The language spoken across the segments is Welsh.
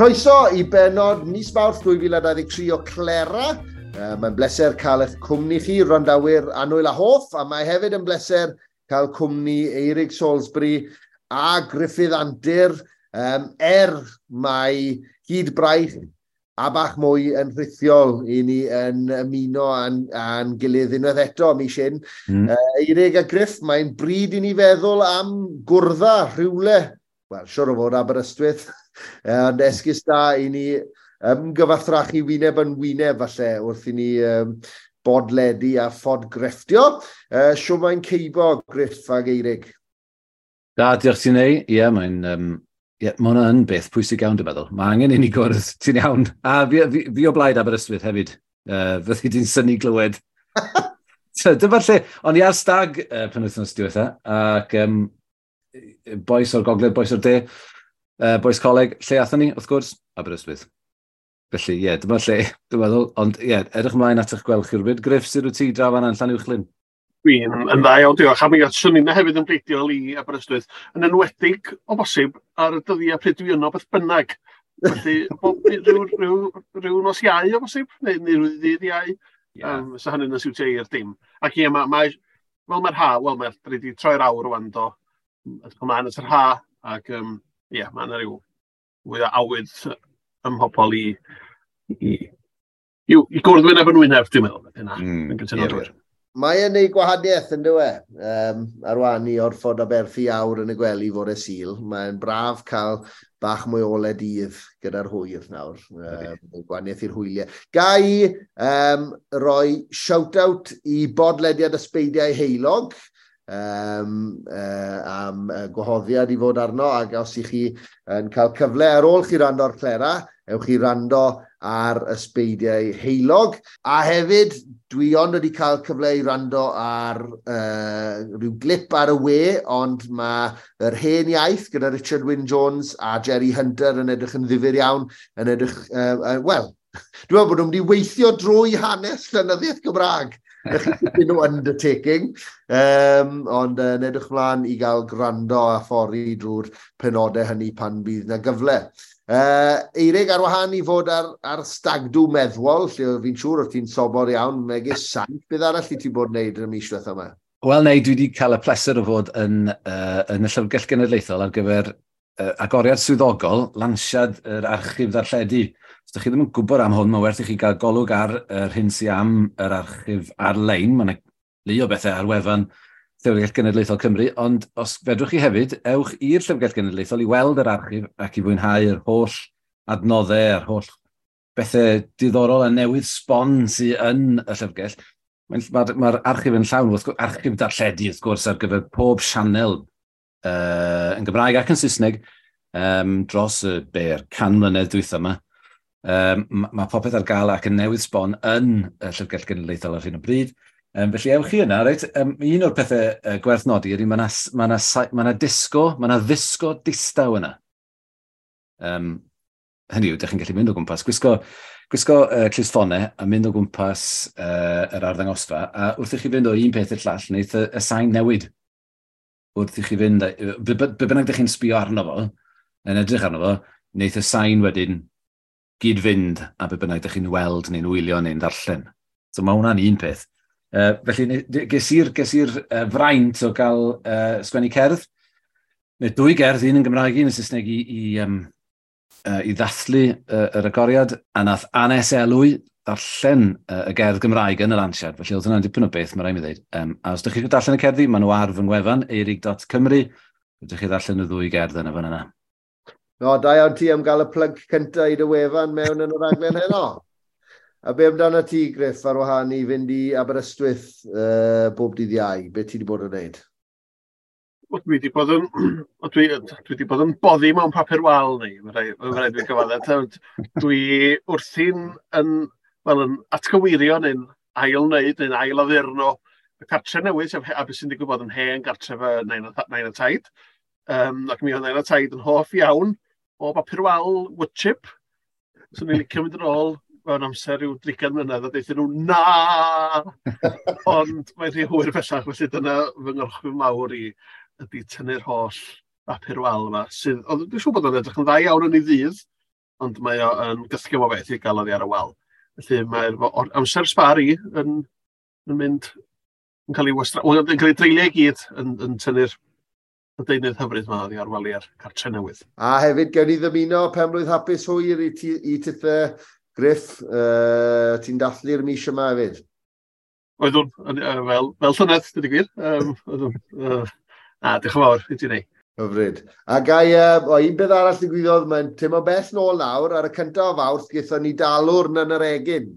Croeso i benod mis Mawrth 2023 o Clera. Mae'n bleser cael eich cwmni chi, wrandawyr annwyl a hoff, a mae hefyd yn bleser cael cwmni Eirig Salisbury a Gruffydd Antur, mae hyd braich a bach mwy yn rhithiol i ni yn ymuno â'n gilydd unwaith eto mis hyn. Eirig a Griff, mae'n bryd i ni feddwl am gwrdda rhywle, wel, siwr o fod Aberystwyth, ond esgus da i ni ymgyfathrachu wyneb yn wyneb falle wrth i ni bodledu a phodgrefftio. Shwd mae'n ceibo, Griff ag Eirig? Da, diolch ti'n ei. Ie, mae'n yeah, mae hwnna yn beth pwysig iawn, dwi'n meddwl. Mae angen i ni gwrdd, ti'n iawn. A fi o blaid Aberystwyth hefyd. Fyddi di'n synnu glywed. Dyma'r lle, o'n i ar stag penwythnos diwetha, ac bois o'r gogledd, bois o'r de, bois coleg, lle athon ni, wrth gwrs? Aberystwyth. Felly, ie, yeah, dyma'r lle, dwi'n meddwl. Ond, ie, yeah, edrych ymlaen at eich gweld chi rhywbryd. Griff, sut wyt ti draw fan'na yn Llanuwchllyn? Dwi'n yn dda iawn, diolch. A mi swn i'n hefyd yn bleidiol i Aberystwyth, yn enwedig o bosib ar y dyddiau pryd dwi yno beth bynnag. Felly, bob, rhyw nos Iau o bosib, neu rhyw ddydd Iau. Yeah. So hynny'n siwtio i'r dim. Ac ie, mae, fel mae'r ha, wel, mae'r wedi troi'r awr rwan do. Edrych ymlaen at yr ha, ac ie, yeah, mae yna rhyw fwy o awydd ym mhobol i gwrdd wyneb yn wyneb, dwi'n meddwl. Yna, yn gytuno drwy'r. Mae e'n neud gwahaniaeth yn dyw e. Ar wahân i orfod aberthu awr yn y gwely fore Sul, mae'n braf cael bach mwy o ole dydd gyda'r hwyr nawr. Gwahaniaeth i'r hwyliau. Ga i roi shout-out i bodlediad Ysbeidiau Heulog am gwahoddiad i fod arno, ac os ych chi yn cael cyfle ar ôl chi wrando ar Clera, ewch chi wrando ar Ysbeidiau Heulog. A hefyd, dwi ond wedi cael cyfle i wrando ar rhyw glip ar y we, ond mae Yr Hen Iaith gyda Richard Wyn Jones a Jerry Hunter yn edrych yn ddifyr iawn, yn edrych, wel, dwi'n meddwl bod nhw'n mynd i weithio drwy hanes llenyddiaeth Gymraeg. Dipyn o undertaking, ond yn edrych mlaen i gael gwrando a phori drwy'r penodau hynny pan bydd na gyfle. Eirig, ar wahân i fod ar stagdw meddwol, lle fi'n siŵr o't ti'n sobor iawn, megis saint, beth arall i ti bod yn neud yn y mis diwetha yma? Wel, nei, dwi wedi cael y pleser o fod yn y Llyfrgell Genedlaethol ar gyfer agoriad swyddogol, lansiad yr archif ddarlledu. Os ydych chi ddim yn gwybod am hwn, mae werth i chi gael golwg ar yr hyn sy'n am yr archif ar-lein. Mae yna lu o bethau ar wefan Llyfrgell Genedlaethol Cymru, ond os fedrwch chi hefyd, ewch i'r Llyfrgell Genedlaethol i weld yr archif ac i fwynhau yr holl adnoddau a'r holl bethau diddorol a newydd sbon sydd yn y llyfrgell. Mae'r archif yn llawn, wrth gwrs, archif darlledu, wrth gwrs, ar gyfer pob sianel yn Gymraeg ac yn Saesneg dros y 100 mlynedd dwytha yma. Mae popeth ar gael ac yn newydd sbon yn y Llyfrgell Genedlaethol ar hyn o bryd. Felly ewch chi yna, reit? Un o'r pethau gwerth nodi ydy mae yna ma ma disgo, mae yna ddisgo distaw yna. Hynny yw, ydych chi'n gallu mynd o gwmpas, gwisgo clustffonau a mynd o gwmpas yr arddangosfa, a wrth i chi fynd o un peth i'r llall, wneith y sain newid. Wrth i chi fynd, be bynnag ydych chi'n sbio arno fo, yn edrych arno fo, wneith y sain wedyn gyd-fynd a be bynnag ydych chi'n weld neu'n wylio neu'n darllen. So mae hwnna'n un peth. Felly ges i'r fraint o gael sgwennu cerdd, neu dwy gerdd, un yn Gymraeg, un yn Saesneg i ddathlu yr agoriad, a nath Anes Elwy ddarllen y gerdd Gymraeg yn y lansiad, felly oedd hwnna'n dipyn o beth, mae rhaid mi ddweud. A os ydych chi eisiau darllen y cerddi, maen nhw ar fy ngwefan, eirig.cymru, ydych chi ddarllen y ddwy gerdd yna fan yna. No, da iawn ti am gael y plug cyntaf i dy wefan mewn yn y raglen heno. A be amdano ti, Griff, ar wahân i fynd i Aberystwyth bob dydd Iau? Be ti wedi bod yn neud? Wel, dwi wedi bod yn boddi mewn papur wal neu, mae rhaid fi gyfadde. Dwi wrthi'n yn, wel, yn atgyweirio neu'n ail wneud neu'n ail addurno y cartre newydd, sef a beth sy'n digwydd bod yn hen gartref y nain a taid. Ac mi oedd nain a taid yn hoff iawn o bapur wal wood chip. So ni'n licio mynd yn ôl mewn amser rhyw 30 mlynedd a deuthon nhw, "Na!" Ond mae'n rhy hwyr bellach, felly dyna fy ngorchwyl mawr i ydy tynnu'r holl bapur wal yma. Sydd, ond dwi'n siŵr bod o'n edrych yn dda iawn yn ei ddydd. Ond mae o yn gythgym o beth i gael oddi ar y wal. Felly mae'r amser sbar i yn mynd, yn cael ei wastra, yn cael ei dreulio i gyd yn tynnu'r y deunydd hyfryd yma oddi ar waliau'r cartre newydd. A hefyd, gewn ni ddymuno penblwydd hapus hwyr i tithe Griff, ti'n dathlu'r mis yma hefyd? Oeddwn, fel llynedd, dweud y gwir. Oeddwn, diolch yn fawr i ti neu. Hyfryd. A gai, un beth arall ddigwyddodd, mae'n teimlo bell nôl nawr, ar y cyntaf o Fawrth, gaethon ni dalwrn yn yr Egin.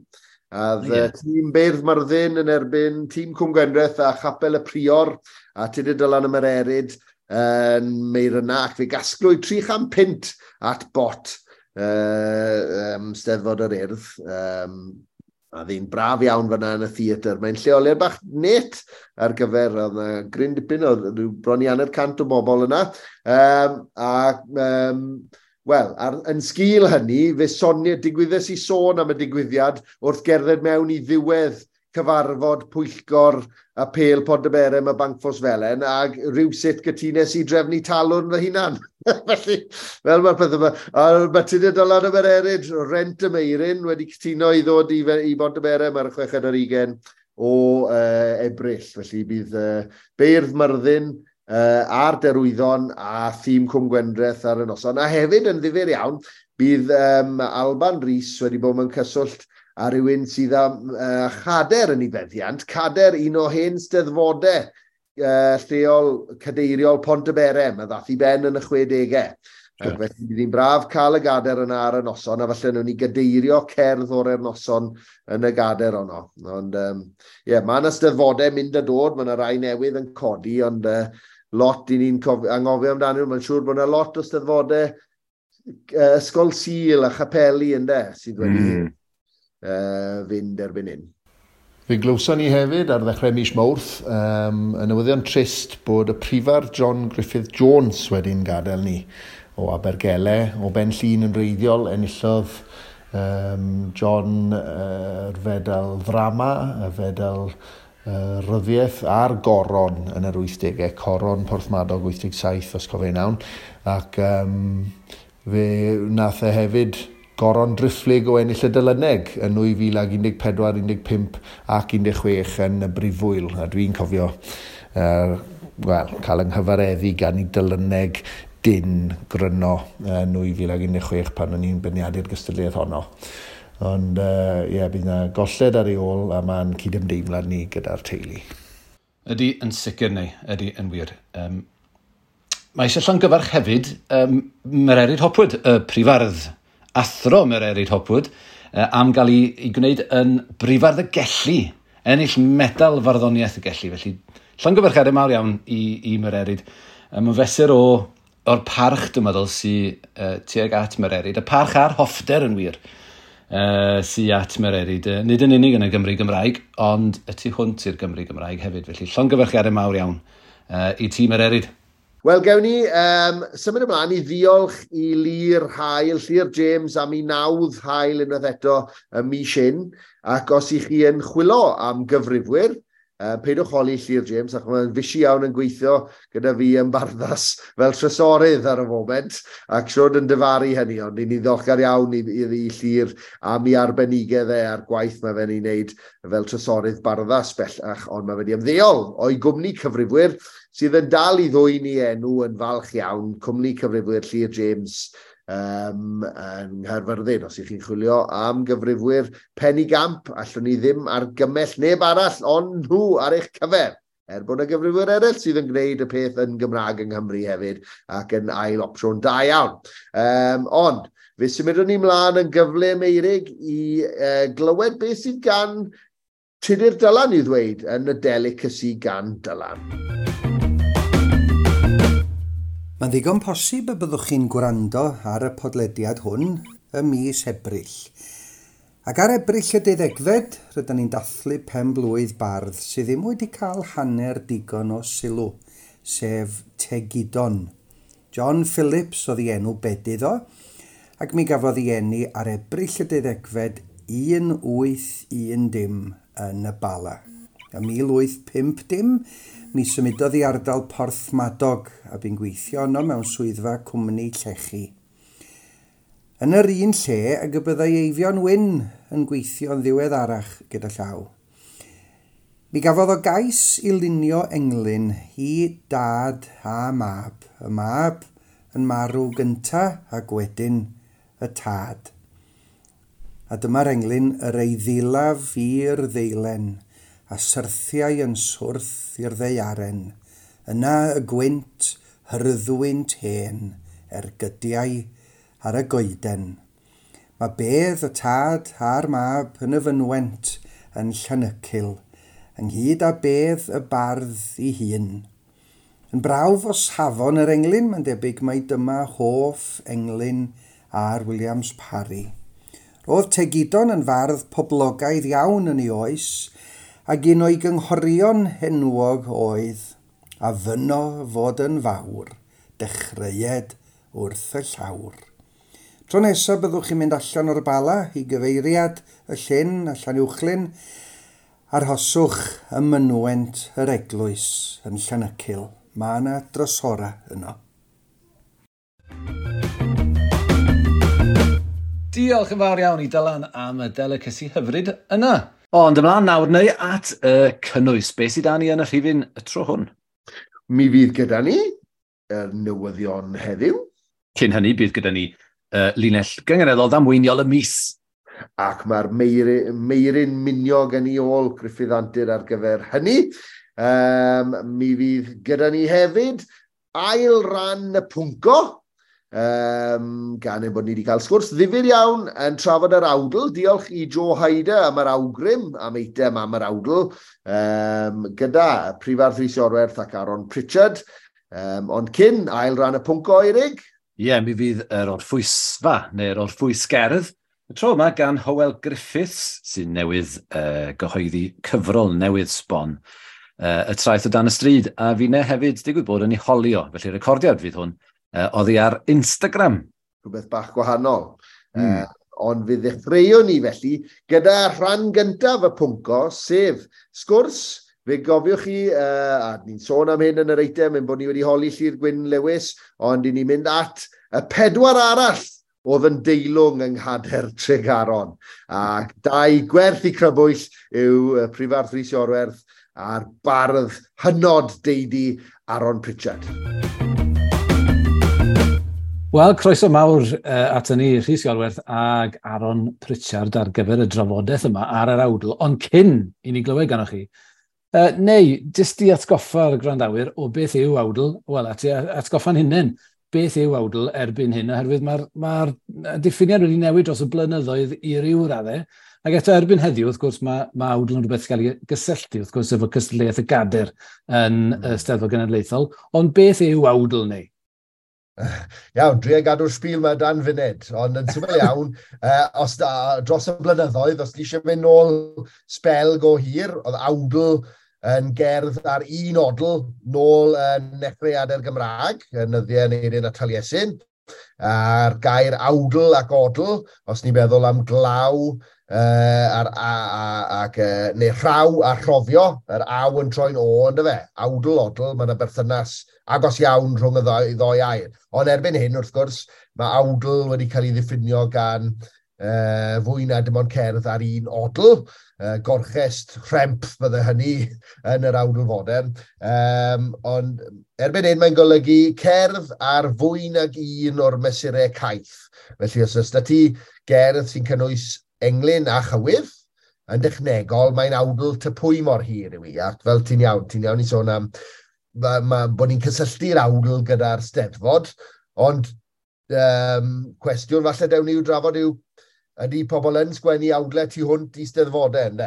A tîm Beirdd Myrddin yn erbyn tîm Cwm Gwendraeth a Chapel y Prior a Tudur Dylan y Mererid yn Meiryna, ac fe gasglwyd 300 at bot Steddfod yr Urdd. A ddi'n braf iawn fyna yn y theatr. Mae'n lleoliad bach net ar gyfer, oedd yna gryn dipyn, oedd rhyw bron i 150 o bobl yna. Wel, yn sgil hynny, fe sonia, digwyddes i sôn am y digwyddiad wrth gerdded mewn i ddiwedd cyfarfod pwyllgor a Pêl Pontyberem a Bancffos Felen, ac rhywsut gytunes i drefnu talwrn fy hunan. Felly, fel mae'r peth yma, a mae Tudur Dylan y Mererid, Rent y Meiryn, wedi cytuno i ddod i Bontyberem ar y 26 o Ebrill. Felly bydd Beirdd Myrddin a'r Derwyddon a thîm Cwm Gwendraeth ar y noson. A hefyd yn ddifyr iawn, bydd Alban Rhys wedi bod mewn cyswllt a rhywun sydd â chader yn ei feddiant, cader un o hen steddfodau lleol cadeiriol Pontyberem, a ddath i ben yn y 60au. Ac felly bydd hi'n braf cael y gader yna ar y noson, a falle nhw'n ni gadeirio cerdd o'r noson yn y gader honno. Ond ie, mae yna steddfodau mynd a dod, mae yna rai newydd yn codi, ond lot i ni'n anghofio amdanyn nhw. Mae'n siŵr bod yna lot o steddfodau ysgol Sul a chapeli ynde, sydd wedi fynd erbyn hyn. Fe glywson ni hefyd ar ddechrau mis Mawrth y newyddion trist bod y prifardd John Griffith Jones wedi'n gadael ni o Abergele, o Ben Llŷn yn wreiddiol, enillodd John yr fedal ddrama, y fedal ryddiaeth a'r goron yn yr 80au, coron Porthmadog 87 os cofi'n iawn, ac fe nath e hefyd goron driphlyg o ennill y Delyneg yn 2014, 15 ac 16 yn y Brifwyl. A dwi'n cofio wel, cael yng nghyfareddu gan i Delyneg dyn gryno yn 2016 pan o'n i'n beirniadu'r gystadleuaeth honno. Ond ie, bydd yna golled ar ei ôl a mae'n cydymdeimlad ni gyda'r teulu. Ydy yn sicr neu, ydy yn wir. Mae eisiau llongyfarch hefyd Mererid Hopwood, y prifardd, athro Mererid Hopwood, am gael ei gwneud yn brifardd y Gelli, ennill medal farddoniaeth y Gelli. Felly, llongyfarchiadau mawr iawn i Mererid. Mae'n fesur o'r parch, dwi'n meddwl, sydd tuag at Mererid. Y parch a'r hoffter yn wir sy at Mererid. Nid yn unig yn y Gymru Gymraeg, ond y tu hwnt i'r Gymru Gymraeg hefyd. Felly, llongyfarchiadau mawr iawn i ti Mererid. Wel, gewn ni symud ymlaen i ddiolch i Llyr Hael, Llyr James am ei nawdd hael unwaith eto y mis hyn. Ac os i chi yn chwilo am gyfrifwyr, peidiwch holi Llyr James, ac mae'n fusi iawn yn gweithio gyda fi yn Barddas fel trysorydd ar y foment, ac siwr yn dyfaru hynny, ond ni'n ddiolchgar iawn i Llyr am ei arbenigedd e a'r gwaith mae fe'n ei wneud fel trysorydd Barddas bellach, ond mae wedi ymddeol o'i gwmni cyfrifwyr sydd yn dal i ddwyn i enw yn falch iawn, cwmni cyfrifwyr Llyr James yng Nghaerfyrddin. Os ych chi'n chwilio am gyfrifwyr penigamp, allwn ni ddim argymell neb arall ond nhw ar eich cyfer. Er bod yna gyfrifwyr eraill sydd yn gwneud y peth yn Gymraeg yng Nghymru hefyd ac yn ail opsiwn da iawn. Ond, fe symudwn ni mlaen yn gyflym, Meirig, i glywed beth sydd gan Tudur Dylan i'w ddweud yn y delicacy gan Dylan. Mae'n ddigon posib y byddwch chi'n gwrando ar y podlediad hwn ym mis Ebrill. Ac ar Ebrill y 12fed, rydyn ni'n dathlu pen blwydd bardd sydd ddim wedi cael hanner digon o sylw, sef Tegidon. John Phillips oedd ei enw bedydd o, ac mi gafodd ei eni ar Ebrill y 12fed 1810 yn y Bala. Ym 1850, mi symudodd i ardal Porthmadog a bu'n gweithio yno mewn swyddfa cwmni llechi. Yn yr un lle ag y byddai Eifion Wyn yn gweithio'n ddiweddarach gyda llaw. Mi gafodd o gais i lunio englyn i dad a mab, y mab yn marw gynta ac wedyn y tad. A dyma'r englyn yr eiddilaf i'r ddeilen, a syrthiau yn swrth i'r ddaearen. Yna y gwynt, hyrddwynt hen, ergydiau ar y goeden. Mae bedd y tad a'r mab yn y fynwent yn Llanycil, ynghyd â bedd y bardd ei hun. Yn brawf o safon yr englyn, mae'n debyg mai dyma hoff englyn ar Williams Parry. Roedd Tegidon yn fardd poblogaidd iawn yn ei oes, ac un o'i gynghorion enwog oedd a fyno fod yn fawr, dechreued wrth y llawr. Tro nesaf byddwch chi'n mynd allan o'r Bala i gyfeiriad y llyn a Llanuwchllyn, arhoswch ym mynwent yr eglwys yn Llanycil. Mae yna drysora yno. Diolch yn fawr iawn i Dylan am y delicacy hyfryd yna. Ond ymlaen nawr neu at y cynnwys. Be sydd da ni yn y rhifyn y tro hwn? Mi fydd gyda ni y newyddion heddiw. Cyn hynny, bydd gyda ni linell gynganeddol ddamweiniol y mis. Ac mae'r Meiryn Miniog yn ei ôl Gruffydd Antur ar gyfer hynny. Mi fydd gyda ni hefyd ail ran y pwnco, gan ein bod ni wedi cael sgwrs ddifyr iawn yn trafod yr awdl. Diolch i Joe Hyder am yr awgrym, am eitem am yr awdl, gyda Prifardd Rhys Iorwerth ac Aaron Pritchard. Ond cyn ail ran y pwnco, Eirig? Ie, yeah, mi fydd yr orffwysfa, neu'r orffwysgerdd, y tro yma gan Hywel Griffiths, sy'n newydd gyhoeddi cyfrol newydd sbon, y traeth o dan y stryd, a finne hefyd digwydd bod yn ei holio, felly recordiad fydd hwn, oddi ar Instagram. Rhywbeth bach gwahanol. Ond fe ddechreuwn ni felly gyda rhan gyntaf y pwnco, sef sgwrs. Fe gofiwch chi, a ni'n sôn am hyn yn yr eitem, ein bod ni wedi holi Llyr Gwyn Lewis, ond i ni'n mynd at y pedwar arall oedd yn deilwng yng Nghader Tregaron. Ac dau gwerth i crybwyll yw Prifardd Rhys Iorwerth a'r bardd hynod deidi Aaron Pritchard. Wel, croeso mawr at ni, Rhys Iorwerth ag Aaron Pritchard ar gyfer y drafodaeth yma ar yr awdl, ond cyn i ni glywed ganoch chi, neu, jyst i atgoffa'r gwrandawyr o beth yw awdl, wel, atgoffa'n hunain, beth yw awdl erbyn hyn, oherwydd mae'r diffiniad wedi newid dros y blynyddoedd i ryw raddau, ac eto erbyn heddiw, wrth gwrs, mae awdl yn rhywbeth sy'n cael ei gysylltu, wrth gwrs, efo cystadleuaeth y gader yn Steddfod Genedlaethol, ond beth yw awdl neu? Iawn, dwi gadw'r sbîl yma dan funud, ond yn syml iawn, os dros y blynyddoedd, os ti eisiau mynd nôl sbel go hir, oedd awdl yn gerdd ar un odl nôl yn nechreuadau'r Gymraeg, yn nyddiau Aneirin a Taliesin, a'r gair awdl ac odl, os ni'n meddwl am glaw neu rhaw a rhofio, yr aw yn troi'n o, ynddo fe, awdl, odl, mae yna berthynas agos iawn rhwng y ddoi air. Ond erbyn hyn, wrth gwrs, mae awdl wedi cael ei ddiffinio gan fwy na dim ond cerdd ar un odl, gorchest rhemp bydde hynny yn yr awdl fodern. Ond erbyn hyn mae'n golygu cerdd ar fwy nag un o'r mesurau caeth. Felly os oes 'da ti gerdd sy'n cynnwys englyn a chywydd, yn dechnegol mae'n awdl ty pwy mor hir yw i. Ac fel ti'n iawn i sôn am bod ni'n cysylltu'r awdl gyda'r Steddfod, ond cwestiwn falle dewn ni i'w drafod yw ydy pobl yn sgwennu awdlau tu hwnt i Steddfodau, ynde?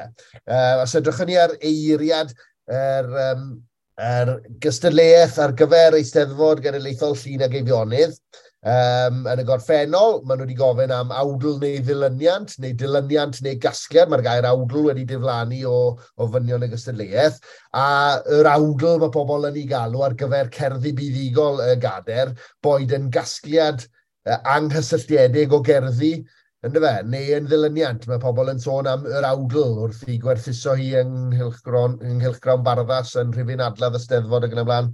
Os edrychwn ni ar eiriad yr gystadleuaeth ar gyfer Eisteddfod Genedlaethol Llŷn ac Eifionydd, yn y gorffennol, maen nhw wedi gofyn am awdl neu ddilyniant, neu gasgliad. Mae'r gair awdl wedi diflannu o ofynion y gystadleuaeth. A yr awdl mae pobl yn ei galw ar gyfer cerddi buddugol y gader, boed yn gasgliad anghysylltiedig o gerddi, yndyfe, neu yn ddilyniant. Mae pobl yn sôn am yr awdl wrth i gwerthuso hi yng Nghylchgrawn Barddas yn rhifyn adladd y Steddfod ac yn y blaen.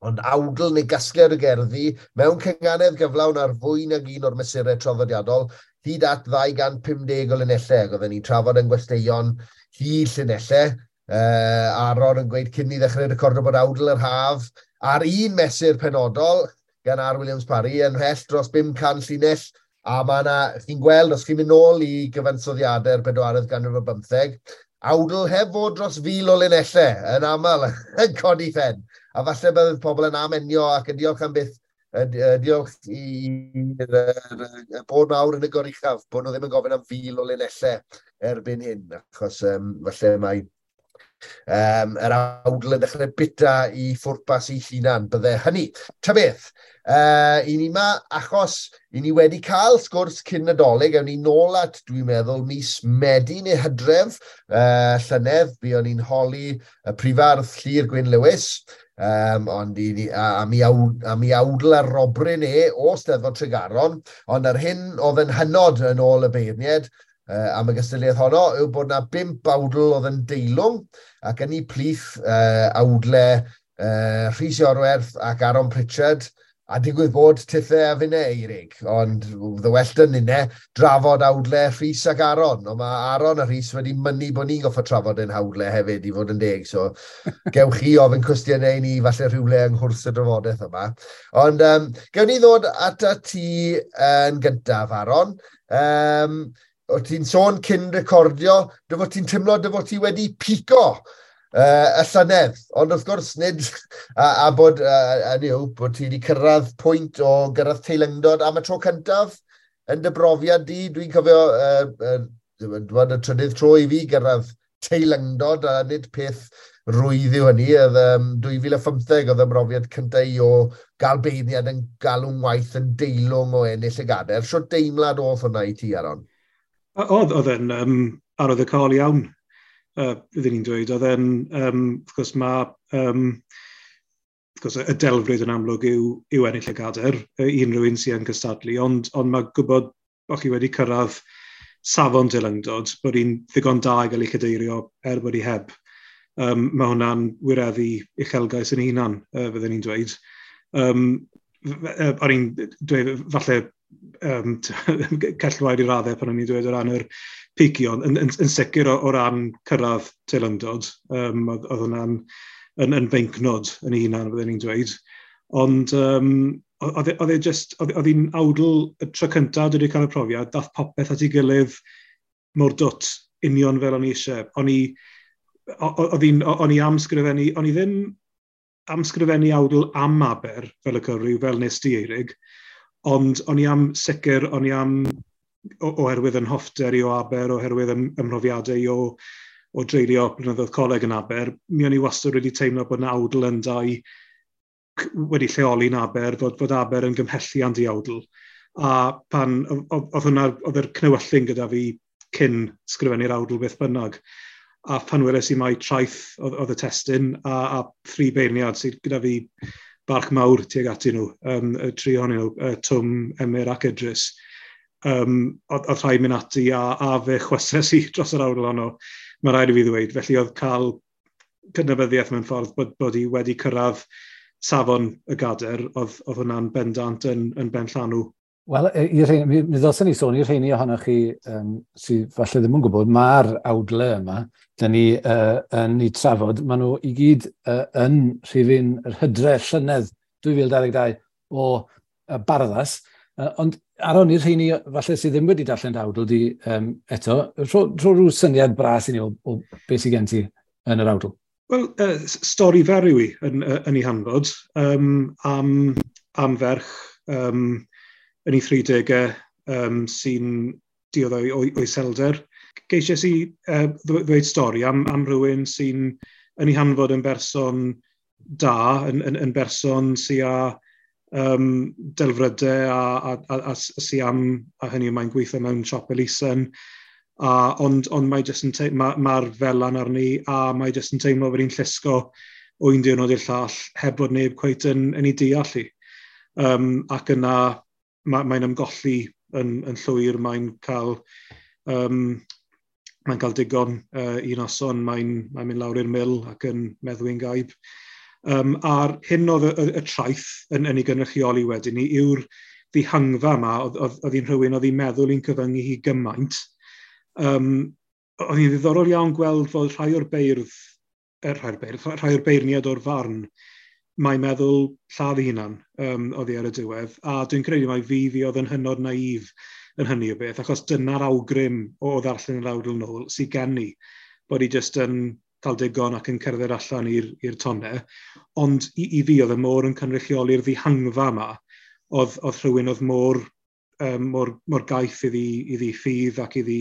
Ond awdl neu gasgliad o gerddi mewn cynganedd gyflawn ar fwy nag un o'r mesurau traddodiadol, hyd at 250 o linellau. Ac oedden ni'n trafod yn gwesteion hyd llinellau. Aaron yn gweud cyn ni ddechrau recordo bod awdl yr haf ar un mesur penodol gan R. Williams Parry yn mhell dros 500 llinell. A mae yna, chi'n gweld, os chi'n mynd nôl i gyfansoddiadau'r bedwaredd ganrif ar bymtheg, awdl heb fod dros 1,000 o linellau yn aml yn codi phen. A falle bydd pobl yn amenio ac yn diolch am byth, diolch i'r bod mawr yn y goruchaf, bod nhw ddim yn gofyn am 1,000 o linellau erbyn hyn, achos falle mae yr awdl yn dechrau bita i ffwrpas i hunan, bydde hynny. Ta beth, i ni ma, achos i ni wedi cael sgwrs cyn Nadolig, ewn ni nôl at, dwi'n meddwl, mis Medi neu Hydref llynedd, buon ni'n holi y prifardd Llyr Gwyn Lewis, ond i ni, a mi awdl ar robryn e o Steddfod Tregaron, ond ar hyn oedd yn hynod yn ôl y beirniaid, am y gystadleuaeth honno yw bod na 5 awdl oedd yn deilwng, ac yn ei plith awdle Rhys Iorwerth ac Aaron Pritchard, a digwydd bod tithe a finne Eirig, ond the well done inne drafod awdle Rhys ac Aaron, ond mae Aaron a Rhys wedi mynnu bod ni'n goffo trafod ein hawdle hefyd, i fod yn deg, so gewch chi ofyn cwestiynau i ni falle rhywle yng nghwrs y drafodaeth yma. Ond gewn ni ddod at ti yn gyntaf, Aaron. O ti'n sôn cyn recordio, dy fod ti'n teimlo dy fod ti wedi pico y llynedd, ond wrth gwrs nid, a bod, bod ti wedi cyrraedd pwynt o gyrraedd teilyngdod am y tro cyntaf yn dy brofiad di. Dwi'n cofio y trydydd tro i fi gyrraedd teilyngdod, a nid peth rwydd yw hynny. Oedd 2015 oedd y brofiad cyntaf i o gael beirniad yn galw'n waith yn deilwng o ennill y gadair. Shwt deimlad oedd hwnna i ti, Aaron? Oedd e'n arwyddocaol iawn, byddwn ni'n dweud. Oedd e'n, wrth gwrs, mae wrth gwrs, y delfryd yn amlwg yw ennill y gadair, i unrhyw un sy'n cystadlu, ond mae gwybod bod chi wedi cyrraedd safon teilyngdod, bod hi'n ddigon da i gael ei chadeirio er bod hi heb. Mae hwnna'n wireddu uchelgais yn ei hunan, fyddwn ni'n dweud. O'n i'n dweud, falle cellwair i raddau pan o'n i'n dweud o ran yr picio, yn sicr o ran cyrraedd teilyngdod, oedd hwnna'n yn feincnod yn ei hunan, fyddwn ni'n dweud. Ond oedd hi'n awdl y tro cyntaf dwi wedi cael y profiad, dath popeth at ei gilydd mor dwt, union fel o'n i eisiau. O'n i am sgrifennu, o'n i ddim am sgrifennu awdl am Aber fel y cyfryw, fel nes di, Eirig, ond o'n i am sicr, o'n i am, oherwydd yn hoffter i o Aber, oherwydd ymhrofiadau i o dreulio blynyddoedd coleg yn Aber, mi o'n i wastad wedi teimlo bod yna awdl yn dau wedi lleoli yn Aber, fod Aber yn gymhelliant i awdl. A pan oedd hwnna, oedd yr cnewyllyn gyda fi cyn sgrifennu'r awdl beth bynnag. A pan weles i mai traeth oedd y testun a thri beirniad sydd gyda fi barch mawr tuag atyn nhw, y tri ohonyn nhw, Twm, Emyr ac Idris. Oedd rhaid mynd ati a fe chwyses i dros yr awdl honno, mae rhaid i fi ddweud. Felly oedd cael cydnabyddiaeth mewn ffordd bod hi wedi cyrraedd safon y gadair, oedd hwnna'n bendant yn benllanw. Wel, mi ddylsen ni sôn i'r rheini ohonoch chi sydd falle ddim yn gwybod, mae'r awdle yma, dyn ni yn ei trafod, maen nhw i gyd yn rhifyn yr hydre llynedd 2022 o Barddas, ond Aaron, i'r rheini falle sydd ddim wedi darllen dy awdl di eto, rho rhyw syniad bras i ni o beth sydd gen ti yn yr awdl. Wel, stori fer yw i yn ei hanfod, am ferch yn ei 30au sy'n dioddef o iselder. Geisiais i ddweud stori am rhywun sy'n yn ei hanfod yn berson da, yn berson sy'n â delfrydau a sy am, a hynny mae'n gweithio mewn siop elusen, ond mae jyst yn mae'r felan arni a mae jyst yn teimlo bod hi'n llusgo o un diwrnod i'r llall heb fod neb cweit yn ei deall hi. Ac yna mae'n ymgolli yn llwyr, mae'n cael digon un noson, mae'n mynd lawr i'r mil ac yn meddwi'n gaib. A'r hyn oedd y traeth yn ei gynrychioli wedyn ni yw'r ddihangfa yma, oedd hi'n rhywun oedd hi'n meddwl i'n cyfyngu hi gymaint. Oedd hi'n ddiddorol iawn gweld fod rhai o'r beirdd, rhai o'r beirniad o'r farn, mae'n meddwl lladd ei hunan oddi ar y diwedd. A dwi'n credu mai fi oedd yn hynod naif yn hynny o beth, achos dyna'r awgrym o ddarllen yr awdl nôl sydd gen i, bod hi jyst yn cael digon ac yn cerdded allan i'r tonnau. Ond i fi oedd y môr yn cynrychioli'r ddihangfa yma, oedd rhywun oedd mor gaeth iddi ffydd ac iddi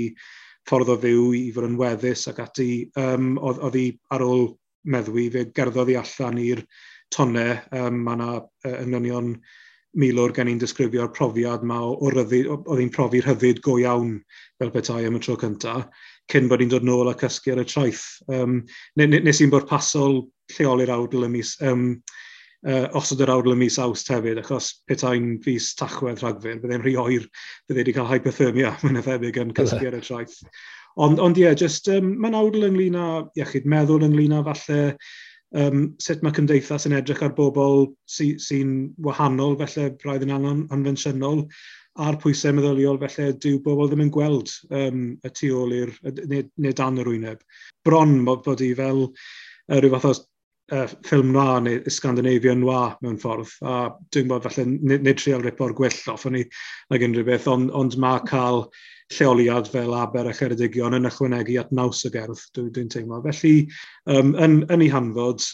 ffordd o fyw i fod yn weddus ac ati. Oedd hi ar ôl meddwi, fe gerddodd hi allan i'r tonnau. Mae yna englynion milwr gen i'n disgrifio'r profiad yma o ryddid, oedd hi'n profi rhyddid go iawn fel petai am y tro cyntaf, cyn bod hi'n dod nôl a cysgu ar y traeth. Nes i'n bwrpasol lleoli'r awdl y mis, osod yr awdl y mis Awst hefyd, achos petai'n fis Tachwedd, Rhagfyr, byddai'n rhy oer, byddai wedi cael hypothermia, mae'n thebyg yn cysgu ar y traeth. Ond ie, just, mae'n awdl ynglyn â iechyd meddwl, ynglyn â falle sut mae cymdeithas yn edrych ar bobl sy wahanol, felly braidd yn anghonfensiynol, a'r pwysau meddyliol, felly dyw bobl ddim yn gweld y tu ôl i'r, neu dan yr wyneb. Bron bod i fel rhyw fath o ffilm noir neu Scandinavian noir mewn ffordd, a dwi'n bod falle nid trial ripo'r gwyll off o'n i nag unrhyw beth, ond mae cael lleoliad fel Aber a Cheredigion yn ychwanegu at naws y gerdd, dwi'n teimlo. Felly, yn ei hanfod,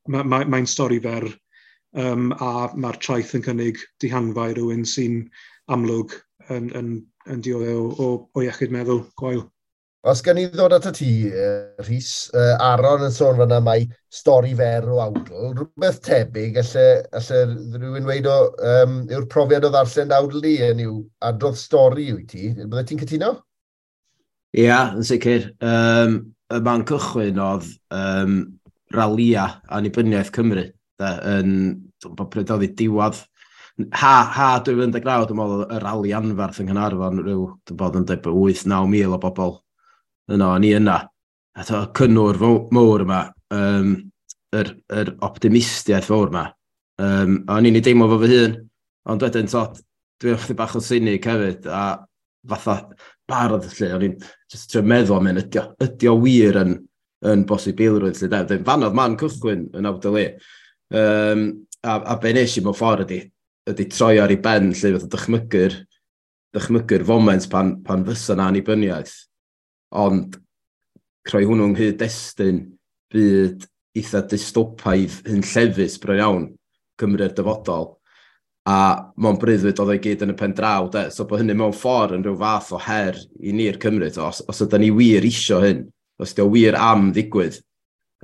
mae'n stori fer, a mae'r traeth yn cynnig dihangfa i rywun sy'n amlwg yn dioddef o iechyd meddwl gwael. Os gan i ddod at y ti, Rhys, Aaron yn sôn fan'na mai stori fer o awdl, rhywbeth tebyg, alle rhywun weud yw'r profiad o ddarllen awdl di, yn yw adrodd stori wyt ti. Bydde ti'n cytuno? Ia, yn sicr. Y man cychwyn oedd ralia annibyniaeth Cymru. Da, yn, dwi'n gwbod pryd oedd hi diwadd. Ha 2019, dwi'n meddwl, y rali anferth yng Nghaernarfon, rhyw, dwi'n bod yn dweud 8-9 mil o bobl yno, ni yna. A to, cynnwr mowr yma, yr optimistiaeth fawr yma. A o'n i'n ei deimlo fo fy hun, ond wedyn, to, dwi'n ychydig bach o sinig hefyd, a fatha bardd, lle, o'n i'n just trio meddwl am hyn, ydi o wir yn bosibilrwydd, lle, de. Fan oedd man cychwyn yn awdl i. A be nes i mewn ffordd ydi troi ar ei ben, lle, fatha dychmygu'r foment pan fysa na annibyniaeth. Ond creu hwnnw yng nghyd-destun byd eitha dystopaidd hunllefus bron iawn Cymru'r dyfodol. A mewn breuddwyd oedd o'i gyd yn y pen draw, de. So bod hynny mewn ffordd yn rhyw fath o her i ni'r Cymru. To. Os ydyn ni wir isio hyn, os ydy o wir am ddigwydd,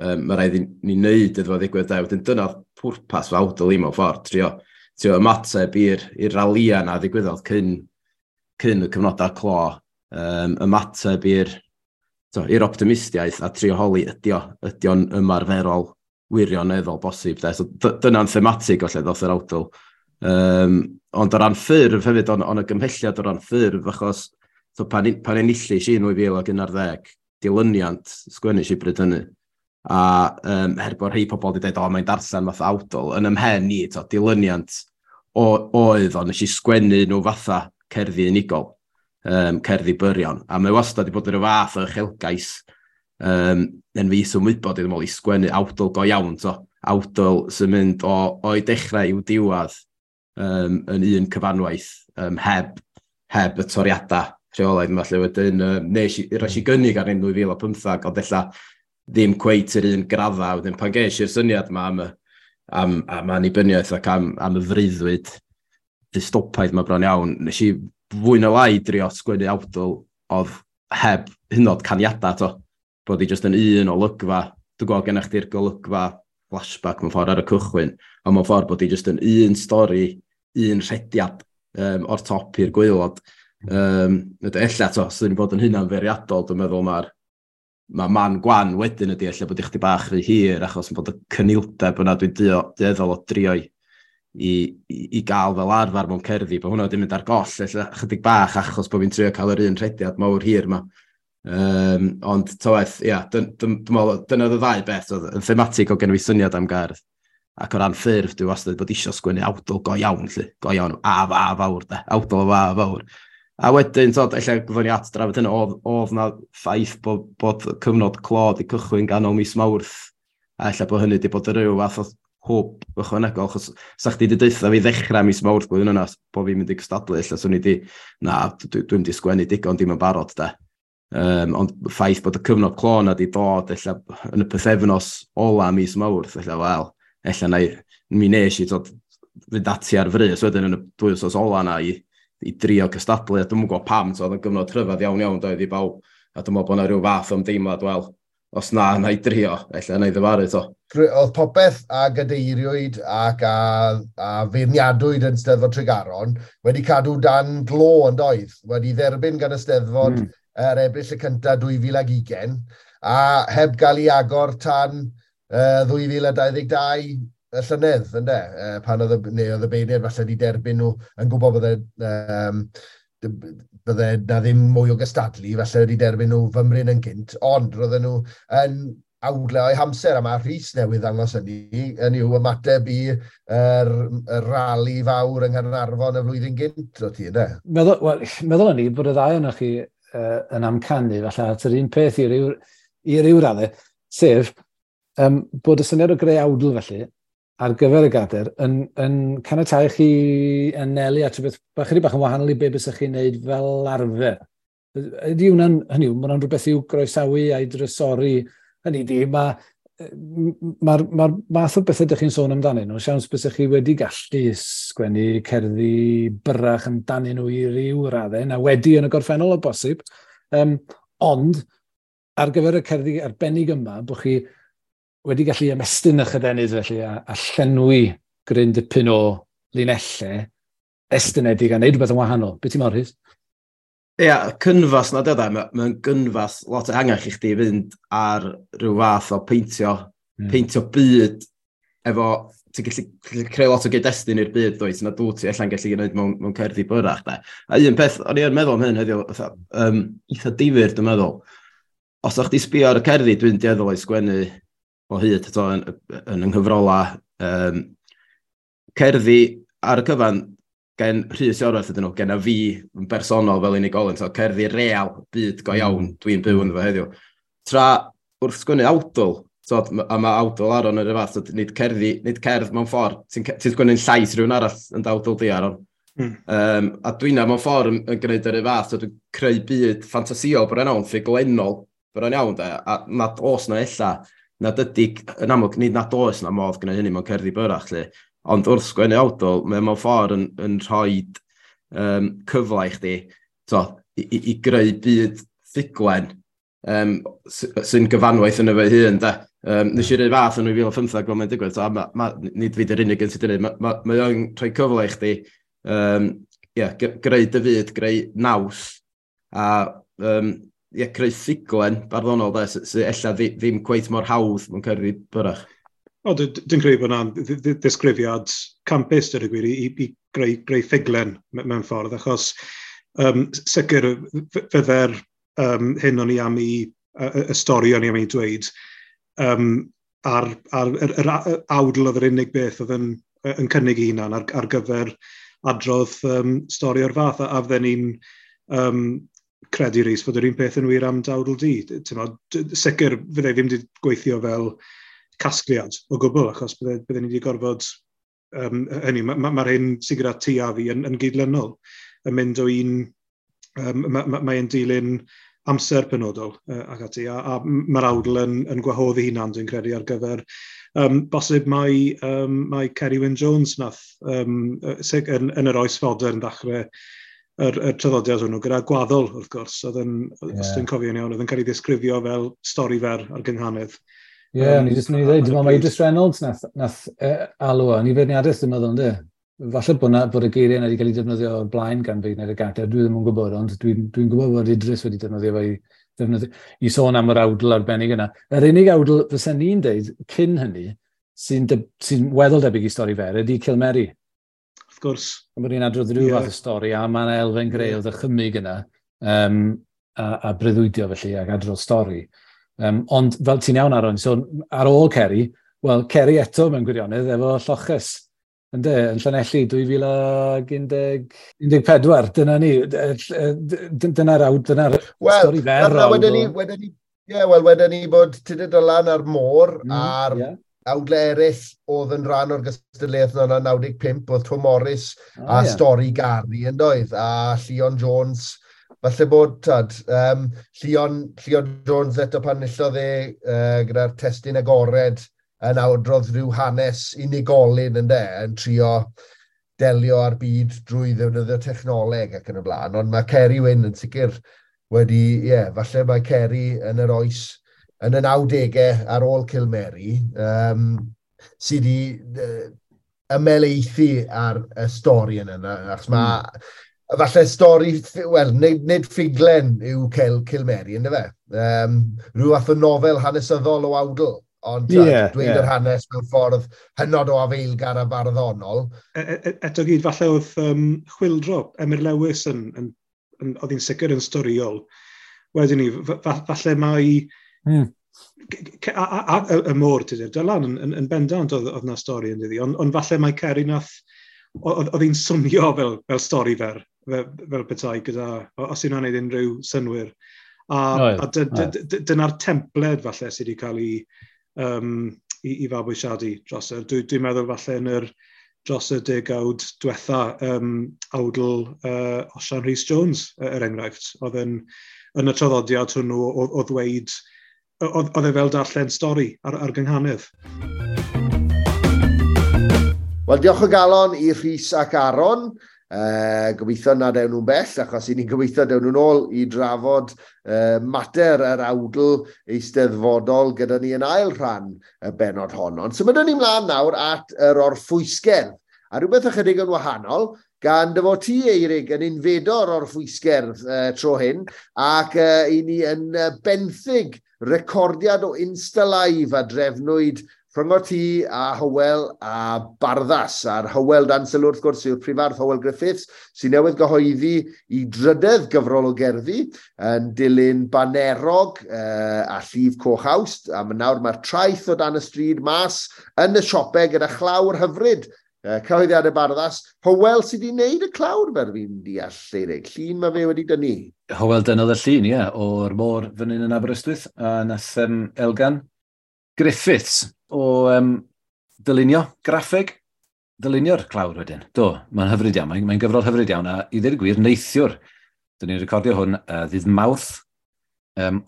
mae rhaid i ni wneud iddo fo ddigwydd. De. Wedyn dyna pwrpas fy awdl i mewn ffordd, trio ymateb i'r ralia na ddigwyddodd cyn y cyfnodau clo, ymateb i'r optimistiaeth a trio holi ydi o'n ymarferol wirioneddol bosib. De. So dyna'n thematig o lle ddoth yr awdl. Ond o ran ffurf hefyd, on y gymhelliad o ran ffurf, achos so, pan enillis i yn 2011, dilyniant sgwennu i bryd hynny. A er bod rhai pobl wedi dweud, o, mae'n darllen fath awdl, yn ymhen i, to, dilyniant oedd o, nes i sgwennu nhw fatha cerddi unigol, cerddi byrion. A mae wastad wedi bod yn rhyw fath o uchelgais, yn fi ymwybod iddyn nhw i sgwennu awdl go iawn, to, awdl sy'n mynd o'i dechrau i'w diwedd, yn un cyfanwaith, heb y toriadau rheolaidd yma, lle wedyn, nes i, roes i gynnig ar un 2015, ond ella ddim cweit yr un graddau. Wedyn pan ges i'r syniad yma am annibyniaeth ac am y freuddwyd dystopaidd yma bron iawn, nes i fwy na lai drio sgwennu awdl oedd heb hynod caniadau, to. Bod i jyst yn un olygfa. Dwi'n gweld gennych chdi'r golygfa flashback mewn ffordd ar y cychwyn, ond mewn ffordd bod i jyst yn un stori, un rhediad, o'r top i'r gwaelod. Ella, to, os ydyn ni bod yn hynna'n feirniadol, dwi'n meddwl mae man gwan wedyn ydy ella bod i chdi bach rhy hir, achos bod y cynildeb yna dwi'n dueddol o drio i gael fel arfer mewn cerddi, bod hwnna wedi mynd ar goll, ella chydig bach achos bod fi'n trio cael yr un rhediad mawr hir yma. Ond ta waeth, ia, dwi'n meddwl, dyna oedd y ddau beth, oedd yn thematig o gen i syniad am gerdd. Ac o ran ffurf, dwi wastad bod isio sgwennu awdl go iawn, lle, go iawn, a fa fawr, de, awdl a fawr. A wedyn, tod, ella gyfwn ni at drafod hynny, oedd na ffaith bod cyfnod clo 'di cychwyn ganol mis Mawrth, a ella bod hynny wedi bod yn rhyw fath o hwb ychwanegol, achos sa chdi wedi deutha fi ddechrau mis Mawrth blwyddyn yna, bod fi'n mynd i gystadlu, ella swn i di, na, dwi'n di sgwennu digon, dim yn barod, de. Ond ffaith bod y cyfnod clo na di dod ella yn y pythefnos ola mis Mawrth, ella, wel, ella na i, mi nes i tod, fynd ati ar frys wedyn yn y 2 wythnos ola na i drio cystadlu, a dwi'm yn gwybod pam, so oedd yn gyfnod rhyfedd iawn iawn doedd i bawb, a dwi'n meddwl bod yna rhyw fath o ymdeimlad, wel, os na, na i drio, ella na i ddyfaru to. Oedd popeth a gadeiriwyd ac a feirniadwyd yn Steddfod Tregaron wedi cadw dan glo yn doedd, wedi dderbyn gan y Steddfod yr Ebrill y cyntaf 2020 a heb gael ei agor tan 2022 y llynedd, ynde? Pan oedd y, neu oedd y beirniaid falle wedi derbyn nhw yn gwybod bydde na ddim mwy o gystadlu, falle wedi derbyn nhw fymryn yn gynt, ond roedden nhw yn awdle o'i hamser, a mae Rhys newydd ddangos hynny, yn yw ymateb i yr rali fawr yng Nghaernarfon y flwyddyn gynt o ti, ynddo? Meddwl, well, meddwl ni bod y ddau ohonoch chi yn amcanu falle at yr un peth i ryw raddau, sef bod y syniad o greu awdl felly ar gyfer y gader yn caniatáu chi anelu at rhywbeth bach chydig bach yn wahanol i be bysach chi'n neud fel arfer. Ydy hwnna'n, hynny yw, mae hwnna'n rhywbeth i'w groesawu a'i drysori. Hynny di, mae'r ma, ma math o bethau ydych chi'n sôn amdanyn nhw, siawns bysach chi wedi gallu sgwennu cerddi byrrach amdanyn nhw i ryw raddau, na wedi yn y gorffennol o bosib. Ond, ar gyfer y cerddi arbennig yma, bod chi wedi gallu ymestyn eich adenydd felly a llenwi gryn dipyn o linellau estynedig a neud rhywbeth yn wahanol. Be ti'n meddwl, Rhys? Ia, cynfas na dyda, mae'n gynfas lot ehangach i chdi fynd ar rhyw fath o peintio, peintio byd efo, ti'n gallu creu lot o gyd-destun i'r byd, dwyt, na dwi ti allan gallu gwneud mewn cerddi byrrach, de. A un peth, o'n i yn meddwl am hyn heddiw, fatha, eitha difyr, dwi'n meddwl. Os o'ch di sbio ar y cerddi, dwi'n dueddol o'i sgwennu o hyd eto yn yng nghyfrola. Cerddi ar y cyfan gen Rhys Iorwerth ydyn nhw, gen a fi yn bersonol fel unigolyn, so cerddi real, byd go iawn, dwi'n byw ynddo fo heddiw. Tra wrth sgwennu awdl, so, a mae awdl Aron yr un fath, so, nid cerddi, nid cerdd mewn ffordd, ti'n ti sgwennu'n llais rhywun arall yn dawdl di, Aron. A dwi'n mewn ffordd yn gwneud yr un fath, so dwi'n creu byd ffantasïol bron iawn, ffuglenol bron iawn, de, a nad oes na ella, nad ydy, yn amlwg, nid nad oes na modd gwneud hynny mewn cerddi byrrach, lle. Ond wrth sgwennu awdl, mae mewn ffordd yn rhoi cyfle i chdi to, i greu byd ffuglen sy'n gyfanwaith yn efo hun, de. Nes i roi fath yn 2015 fel mae'n digwydd, so, ma, nid fi dy'r unig un sydd wedi gwneud, mae o'n rhoi cyfle i chdi yeah, greu dy fyd, greu naws, a yeah, creu ffuglen barddonol, de, sy ella ddim cweit mor hawdd mewn cerddi byrrach. O, dwi'n credu bod yna'n ddisgrifiad campus, dweud y gwir, i greu ffuglen mewn ffordd, achos sicr fydde'r hyn o'n i am i, y stori o'n i am ei dweud, ar yr awdl oedd yr unig beth oedd yn cynnig ei hunan ar gyfer adrodd stori o'r fath, a fydden ni'n credu, Rhys, fod yr un peth yn wir am dawdl di. T'mod, sicr fydde ddim wedi gweithio fel casgliad o gwbl, achos bydde ni wedi gorfod, hynny, mae'r ma hyn sydd gyda ti a fi yn gydlynol, yn mynd o un, mae dilyn amser penodol ac ati, a mae'r awdl yn gwahodd ei hunan, dwi'n credu, ar gyfer bosib mai Ceri Wyn Jones nath yn yr oes fodern ddechrau yr traddodiad hwnnw, gyda Gwaddol, wrth gwrs, oedd yn, os dwi'n cofio'n iawn, oedd yn cael ei ddisgrifio fel stori fer ar gynghanedd. Ie, yeah, ni jyst mynd i ddweud, dwi'n meddwl mai Idris Reynolds nath alw o, ni feirniadaeth dwi'n meddwl, ynddi? Falle bod y geiriau yna wedi cael ei defnyddio o'r blaen gan feirniad y gader, dwi ddim yn gwybod, ond dwi gwybod bod Idris wedi defnyddio fe i sôn am yr awdl arbennig yna. Yr unig awdl fysen ni'n deud cyn hynny, sy weddol debyg i stori fer, ydy Cilmeri. Wrth gwrs. Mae ni'n adrodd rhyw fath o stori, a mae'n elfen greu o ddychymyg yna. a breuddwydio felly ac adrodd stori. Ond fel ti'n iawn, Aaron, so ar ôl Ceri, wel, Ceri eto mewn gwirionedd efo Lloches, ynde, yn Llanelli 2014, dyna ni, dyna'r dyna stori fer. Wedyn ni, ie, wel, wedyn ni bod Tudur Dylan a'r môr a'r awdle eraill oedd yn rhan o'r gystadleuaeth yna 95, oedd Twm Morys a Stori Gari yn doedd, a Llion Jones. Falle bod, tad, Llion Jones eto pan enillodd e gyda'r testun agored yn awdrodd rhyw hanes unigolyn ynde, yn trio delio â'r byd drwy ddefnyddio technoleg ac yn y blaen. Ond mae Ceri Wyn yn sicr wedi, ie, yeah, falle mae Ceri yn yr oes, yn y 90au ar ôl Cilmeri, sydd wedi ymhelaethu ar y stori yna, achos mae falle stori, wel, nid ffuglen yw Cilmeri, ynddo fe? Rhyw fath o nofel hanesyddol o awdl, ond dweud yr hanes mewn ffordd hynod o afeilgar a barddonol. Eto gyd, falle oedd Chwyldro, Emyr Lewis, oedd hi'n sicr yn storiol. Wedyn ni, falle mai y môr, Tudur Dylan, yn bendant oedd na stori yn dyddi, ond falle mai Ceri nath, oedd hi'n swnio fel stori fer, fel petai, gyda, os yna'n gwneud unrhyw synwyr. A dyna'r templed falle sydd wedi cael ei fabwysiadu dros y. Dwi'n meddwl falle yn yr dros y degawd diwetha, awdl Osian Rhys Jones, er enghraifft, oedd yn y traddodiad hwnnw o ddweud, oedd e fel darllen stori ar gynghanedd. Wel, diolch o galon i Rhys ac Aaron. Gobeithio nad ewn nhw'n bell, achos i ni'n gobeithio dewn nhw'n ôl i drafod mater yr awdl eisteddfodol gyda ni yn ail rhan y bennod hon. Ond symudwn ni mlaen nawr at yr orffwysgerdd, a rhywbeth ychydig yn wahanol, gan dy fod ti, Eirig, yn unfedo'r orffwysgerdd tro hyn, ac i ni yn benthyg recordiad o Insta Live a drefnwyd rhyngot ti a Hywel a Barddas. A'r Hywel dan sylw wrth gwrs yw'r prifardd Hywel Griffiths, sy'n newydd gyhoeddi i drydedd gyfrol o gerddi yn dilyn Banerog a Llif Coch Awst. A nawr mae'r traeth o dan y stryd mas yn y siopau gyda chlawr hyfryd. Cyhoeddiadau Barddas. Hywel sydd wedi wneud y clawr, fel fi'n deall, Eirig. Llun mae fe wedi dynnu. Hywel dynnodd y llun, ie, o'r môr fan hyn yn Aberystwyth, a nath Elgan Griffiths o dylunio graffeg, dylunio'r clawr wedyn. Do, mae'n hyfryd iawn, mae'n gyfrol hyfryd iawn, a i ddweud y gwir, neithiwr. Dyn ni'n recordio hwn ddydd Mawrth,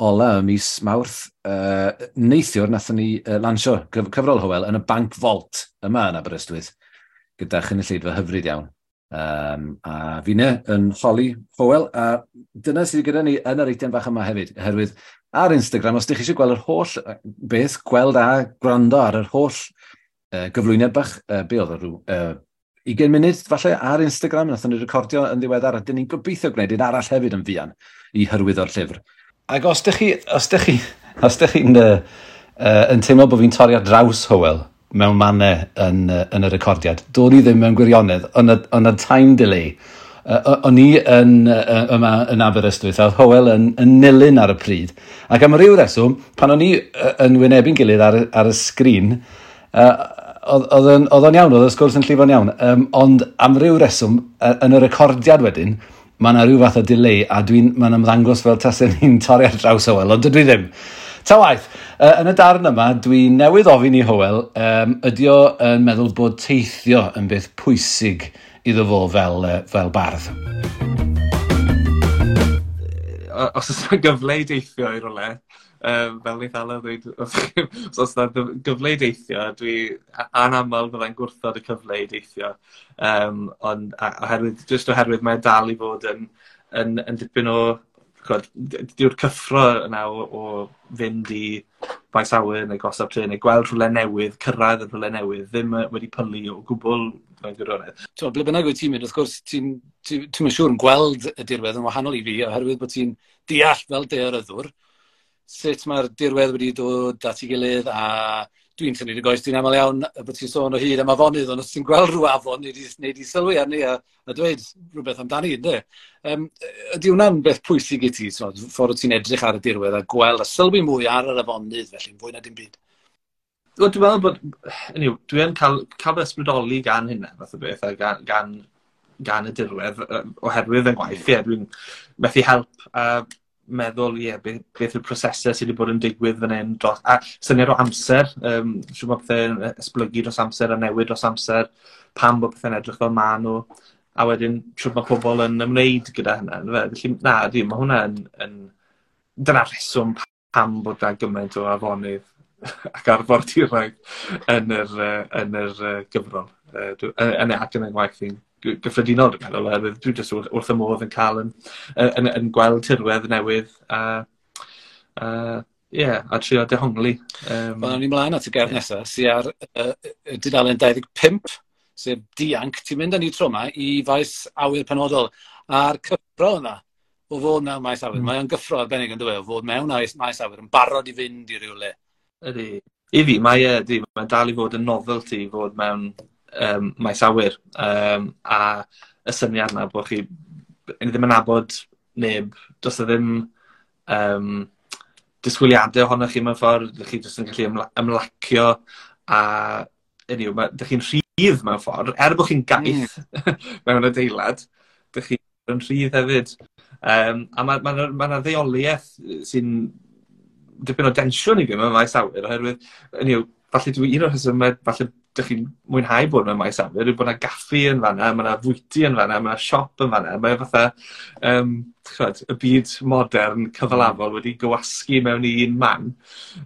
ola y mis Mawrth. Neithiwr nathon ni lansio cyfrol Hywel yn y Bank Vault yma yn Aberystwyth, gyda chynulleidfa hyfryd iawn. A finne yn holi Hywel, a dyna sydd gyda ni yn yr eitem fach yma hefyd, oherwydd ar Instagram, os ydych chi eisiau gweld yr holl beth, gweld a gwrando ar yr holl gyflwyniad bach, be oedd o rhyw 20 munud falle ar Instagram, nathon ni recordio yn ddiweddar, a dyn ni'n gobeithio gwneud un arall hefyd yn fuan i hyrwyddo'r llyfr. Ac os ydych chi'n yn teimlo bod fi'n torri ar draws Hywel mewn mannau yn y recordiad, do'n i ddim mewn gwirionedd, ond y time delay. O'n i yma yn Aberystwyth, a oedd Hywel yn nilyn ar y pryd. Ac am ryw reswm, pan o'n i yn wynebu'n gilydd ar y sgrin, oedd o'n iawn, oedd y sgwrs yn llifo'n iawn. Ond am ryw reswm, yn y recordiad wedyn, mae yna rhyw fath o delay, a mae'n ymddangos fel tasen ni'n torri ar draws Hywel, ond dydw i ddim. Ta waeth, yn y darn yma, dwi newydd ofyn i Hywel, ydi o yn meddwl bod teithio yn beth pwysig iddo fo fel bardd? Os oes yna gyfle i deithio i rywle, fel wnaeth Alaw ddweud, os oes yna gyfle i deithio, dwi anaml fyddai'n gwrthod y cyfle i deithio. Ond oherwydd, jyst oherwydd mae dal i fod yn dipyn o, ch'od, dyw'r cyffro yna o fynd i faes awyr neu gorsaf trên neu gweld rhywle newydd, cyrraedd y rhywle newydd, ddim wedi pylu o gwbl mewn gwirionedd. T'mo, ble bynnag wyt ti'n mynd, wrth gwrs, ti'n siŵr yn gweld y dirwedd yn wahanol i fi, oherwydd bod ti'n deall fel daearyddwr sut mae'r dirwedd wedi dod at ei gilydd a Dwi'n tynnu dy goes di'n aml iawn bod ti'n sôn o hyd am afonydd, ond os ti'n gweld rhyw afon, nei di sylwi arni a dweud rhywbeth amdani, ynddo? Ydy hwnna'n beth pwysig i ti, so, ffordd ti'n edrych ar y dirwedd a gweld a sylwi mwy ar yr afonydd, felly, fwy na dim byd? Wel, dwi'n meddwl bod, anyway, dwi yn cael fy ysbrydoli gan hynna, fath o beth, a gan y dirwedd, oherwydd yn gwaith, ie, dwi'n methu help a meddwl, ie, beth yw'r prosesau sydd wedi bod yn digwydd fan hyn, dros, a syniad o amser, siŵr bod pethau'n esblygu dros amser a newid dros amser, pam bod pethau'n edrych fel maen nhw, a wedyn siŵr mae pobl yn ymwneud gyda hynna. Felly, na, di, mae hwnna yn dyna'r rheswm pam bod na gymaint o afonydd ac arfordiroedd yn yr gyfrol. Ac yn y ngwaith i'n gyffredinol, dwi'n meddwl, oherwydd dwi jyst wrth y modd yn cael yn gweld tirwedd newydd a yeah, a trio dehongli. Wel, ni mlaen at y gerdd nesaf, sydd ar dudalen 25, sef Dianc. Ti'n mynd â ni tro yma i faes awyr penodol. A'r cyffro yna, o fod mewn maes awyr, mae o'n gyffro arbennig yn dweud, o fod mewn maes awyr yn barod i fynd i rywle. Ydy. I fi, mae e, ydy, mae'n dal i fod yn novelty i fod mewn maes awyr. A y syniad yna bod chi ni ddim yn nabod neb, does e ddim disgwyliadau ohonoch chi mewn ffordd, ydych chi jyst yn gallu ymlacio a anyway, ydych chi'n rhydd mewn ffordd, er bod chi'n gaeth mewn adeilad, ydych chi'n rhydd hefyd. A mae ddeuoliaeth sy'n dipyn o densiwn i fi mewn maes awyr, oherwydd, anyway, falle dwi un o'r rhesymau, falle dych chi'n mwynhau bod mewn maes awyr, yw bod yna gaffi yn fanna, mae yna fwyty yn fanna, mae yna siop yn fanna, mae fatha, ch'mod, y byd modern cyfalafol wedi gywasgu mewn i un man.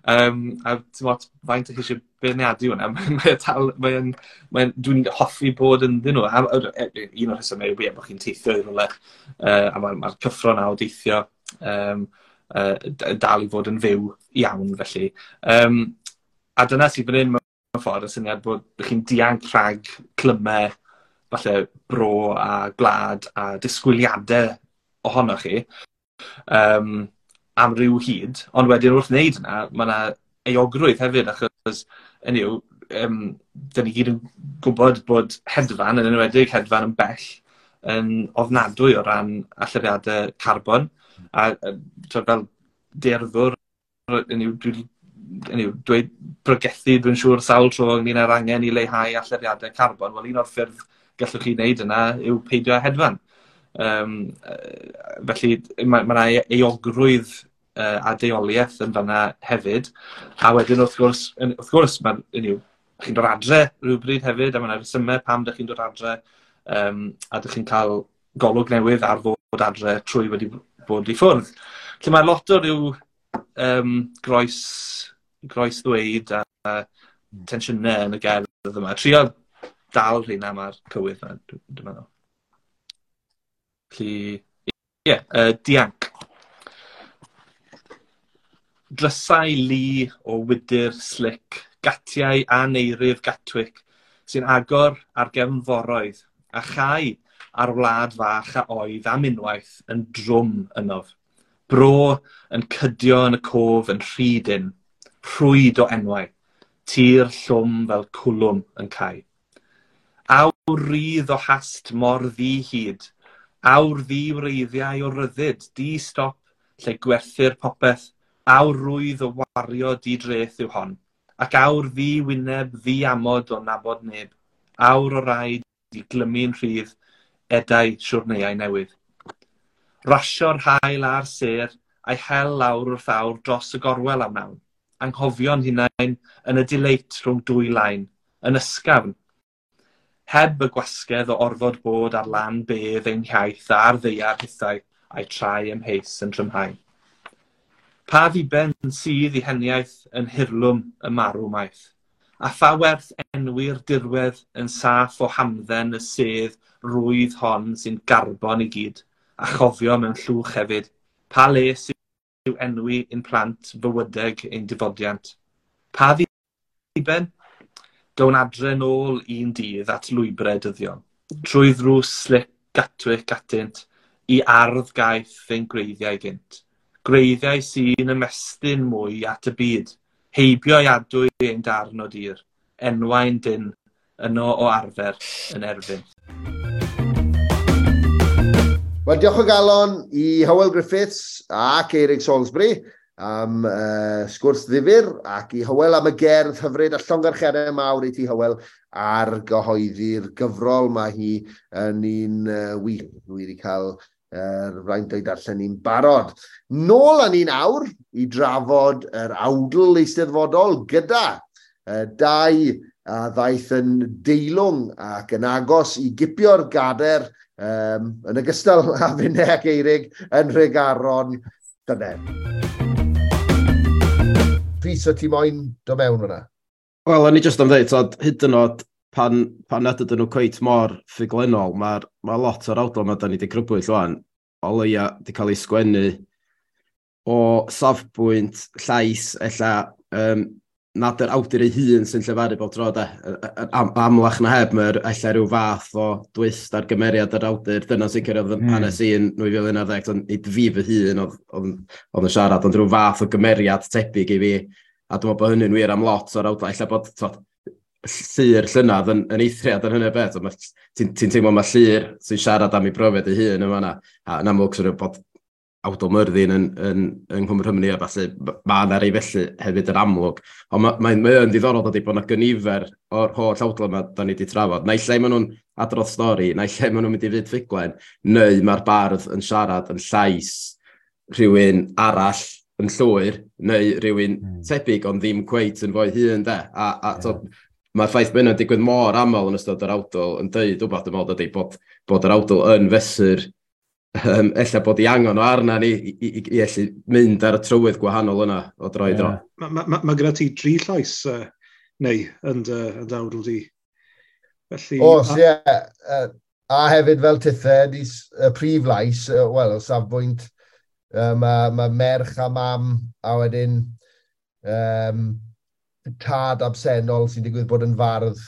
A ti'n faint ych chi eisiau beirniadu hwnna, mae dal, mae dwi'n hoffi bod ynddyn nhw. A un o'r rhesymau yw bod chi'n teithio i rywle, a mae'r cyffro 'na o deithio dal i fod yn fyw iawn, felly. A dyna sydd fan hyn mewn ffordd, y syniad bod chi'n dianc rhag clymau, falle bro a gwlad a disgwyliadau ohonoch chi am ryw hyd, ond wedyn wrth wneud yna, mae yna euogrwydd hefyd, achos hynny yw, dyn ni gyd yn gwybod bod hedfan, yn enwedig hedfan yn bell, yn ofnadwy o ran allyriadau carbon. A twyd, fel daearyddwr, hynny yw, dwi wedi, hynny yw, dweud pregethu, dwi'n siŵr, sawl tro ynglyn â'r angen i leihau allyriadau carbon. Wel, un o'r ffyrdd gallwch chi wneud yna yw peidio â hedfan. Felly mae yna euogrwydd a deuoliaeth yn fanna hefyd. A wedyn wrth gwrs, mae, hynny yw, chi'n dod adre rhywbryd hefyd, a mae yna resymau pam dych chi'n dod adre, a dych chi'n cael golwg newydd ar fod adre trwy wedi bod i ffwrdd. Felly mae lot o ryw groes ddweud a tensiynau yn y gerdd yma. Trio dal rheina mae'r cywydd yma, dwi'n meddwl. Felly, ie, yeah, Dianc. Drysau lu o wydr slic, gatiau aneirif Gatwick, sy'n agor ar gefnforoedd, a chau ar wlad fach a oedd am unwaith yn drwm ynof. Bro yn cydio yn y cof yn rhy dynn, rhwyd o enwau, tir llwm fel cwlwm yn cau. Awr rydd o hast mor ddi-hid, awr ddi-wreiddiau o ryddid, di-stop lle gwerthir popeth, awr rwydd o wario di-dreth yw hon, ac awr ddi-wyneb ddi-amod o nabod neb, awr o raid i glymu'n rhydd edau siwrneiau newydd. Rasio'r haul a'r sêr, a'i hel lawr wrth awr dros y gorwel am wnawn. Anghofio'n hunain yn y dileit rhwng dwy lain, yn ysgafn. Heb y gwasgedd o orfod bod ar lan bedd ein hiaith a'r ddaear hithau a'i trai amheus yn trymhau. Pa ddiben sydd i heniaith yn hirlwm y marw maith? A pha werth enwi'r dirwedd yn saff o hamdden y sedd rwydd hon sy'n garbon i gyd, a chofio mewn llwch hefyd, pa les yw enwi ein plant fywydeg ein difodiant? Pa ddiben? Down adre nôl un dydd at lwybrau dyddiol, trwy ddrws slic Gatwick atynt, i ardd gaeth ein gwreiddiau gynt. Gwreiddiau sy'n ymestyn mwy at y byd. Heibio i adwy ein darn o dir, enwau'n dyn, yno o arfer yn erfyn. Wel, diolch o galon i Hywel Griffiths ac Eirig Salisbury am sgwrs ddifyr ac i Hywel am y gerdd hyfryd a llongarchiadau mawr i ti, Hywel, ar gyhoeddi'r gyfrol. Mae hi yn un wych. Dwi wedi cael yr fraint o'i darllen ni'n barod. Nôl â ni'n awr i drafod yr awdl eisteddfodol gyda dau a ddaeth yn deilwng ac yn agos i gipio'r gader yn ogystal â finne ac Eirig yn Nhregaron llynedd. Rhys, o ti moyn do mewn fyna? Wel, o'n i jyst am dweud, tod, hyd yn oed pan nad ydyn nhw cweit mor ffuglenol, mae ma lot o'r awdl yma da ni wedi crybwyll ŵan, o leia wedi cael ei sgwennu o safbwynt llais, ella nad yr awdur ei hun sy'n llefaru bob tro, de. Amlach na heb, mae'r ella rhyw fath o dwist ar gymeriad yr awdur. Dyna sicr oedd hanes i yn 2011, ond nid fi fy hun oedd yn siarad, ond rhyw fath o gymeriad tebyg i fi. A dwi'n meddwl bod hynny'n wir am lot o'r awdlau. Ella bod tod, Llyr llynadd yn eithriad yn hynny beth. Ti'n teimlo mae Llyr sy'n siarad am ei brofiad ei hun yn fan'na. A yn amlwg sy'n bod awdl Myrddin yn Nghwm Rhymni a falle, mae yna rei felly hefyd yn amlwg. Ond mae yn ddiddorol dydy bod yna gynifer o'r holl awdl yma da ni wedi trafod. Naill ai maen nhw'n adrodd stori, naill ai maen nhw'n mynd i fyd ffuglen, neu mae'r bardd yn siarad yn llais rhywun arall yn llwyr, neu rhywun tebyg ond ddim cweit yn fo'i hun, de. A mae'r ffaith bod hynna'n digwydd mor aml yn ystod yr awdl yn deud wbath, dwi'n meddwl, dydy, bod yr awdl yn fesur ella bod i angen o arna ni i allu mynd ar y trywydd gwahanol yna o dro i dro. Mae gyda ti dri llais neu yn dy awdl di. Felly, Oes, ie. A hefyd fel tithe, y prif lais, wel, o safbwynt, mae merch a mam, a wedyn tad absennol sy'n digwydd bod yn fardd.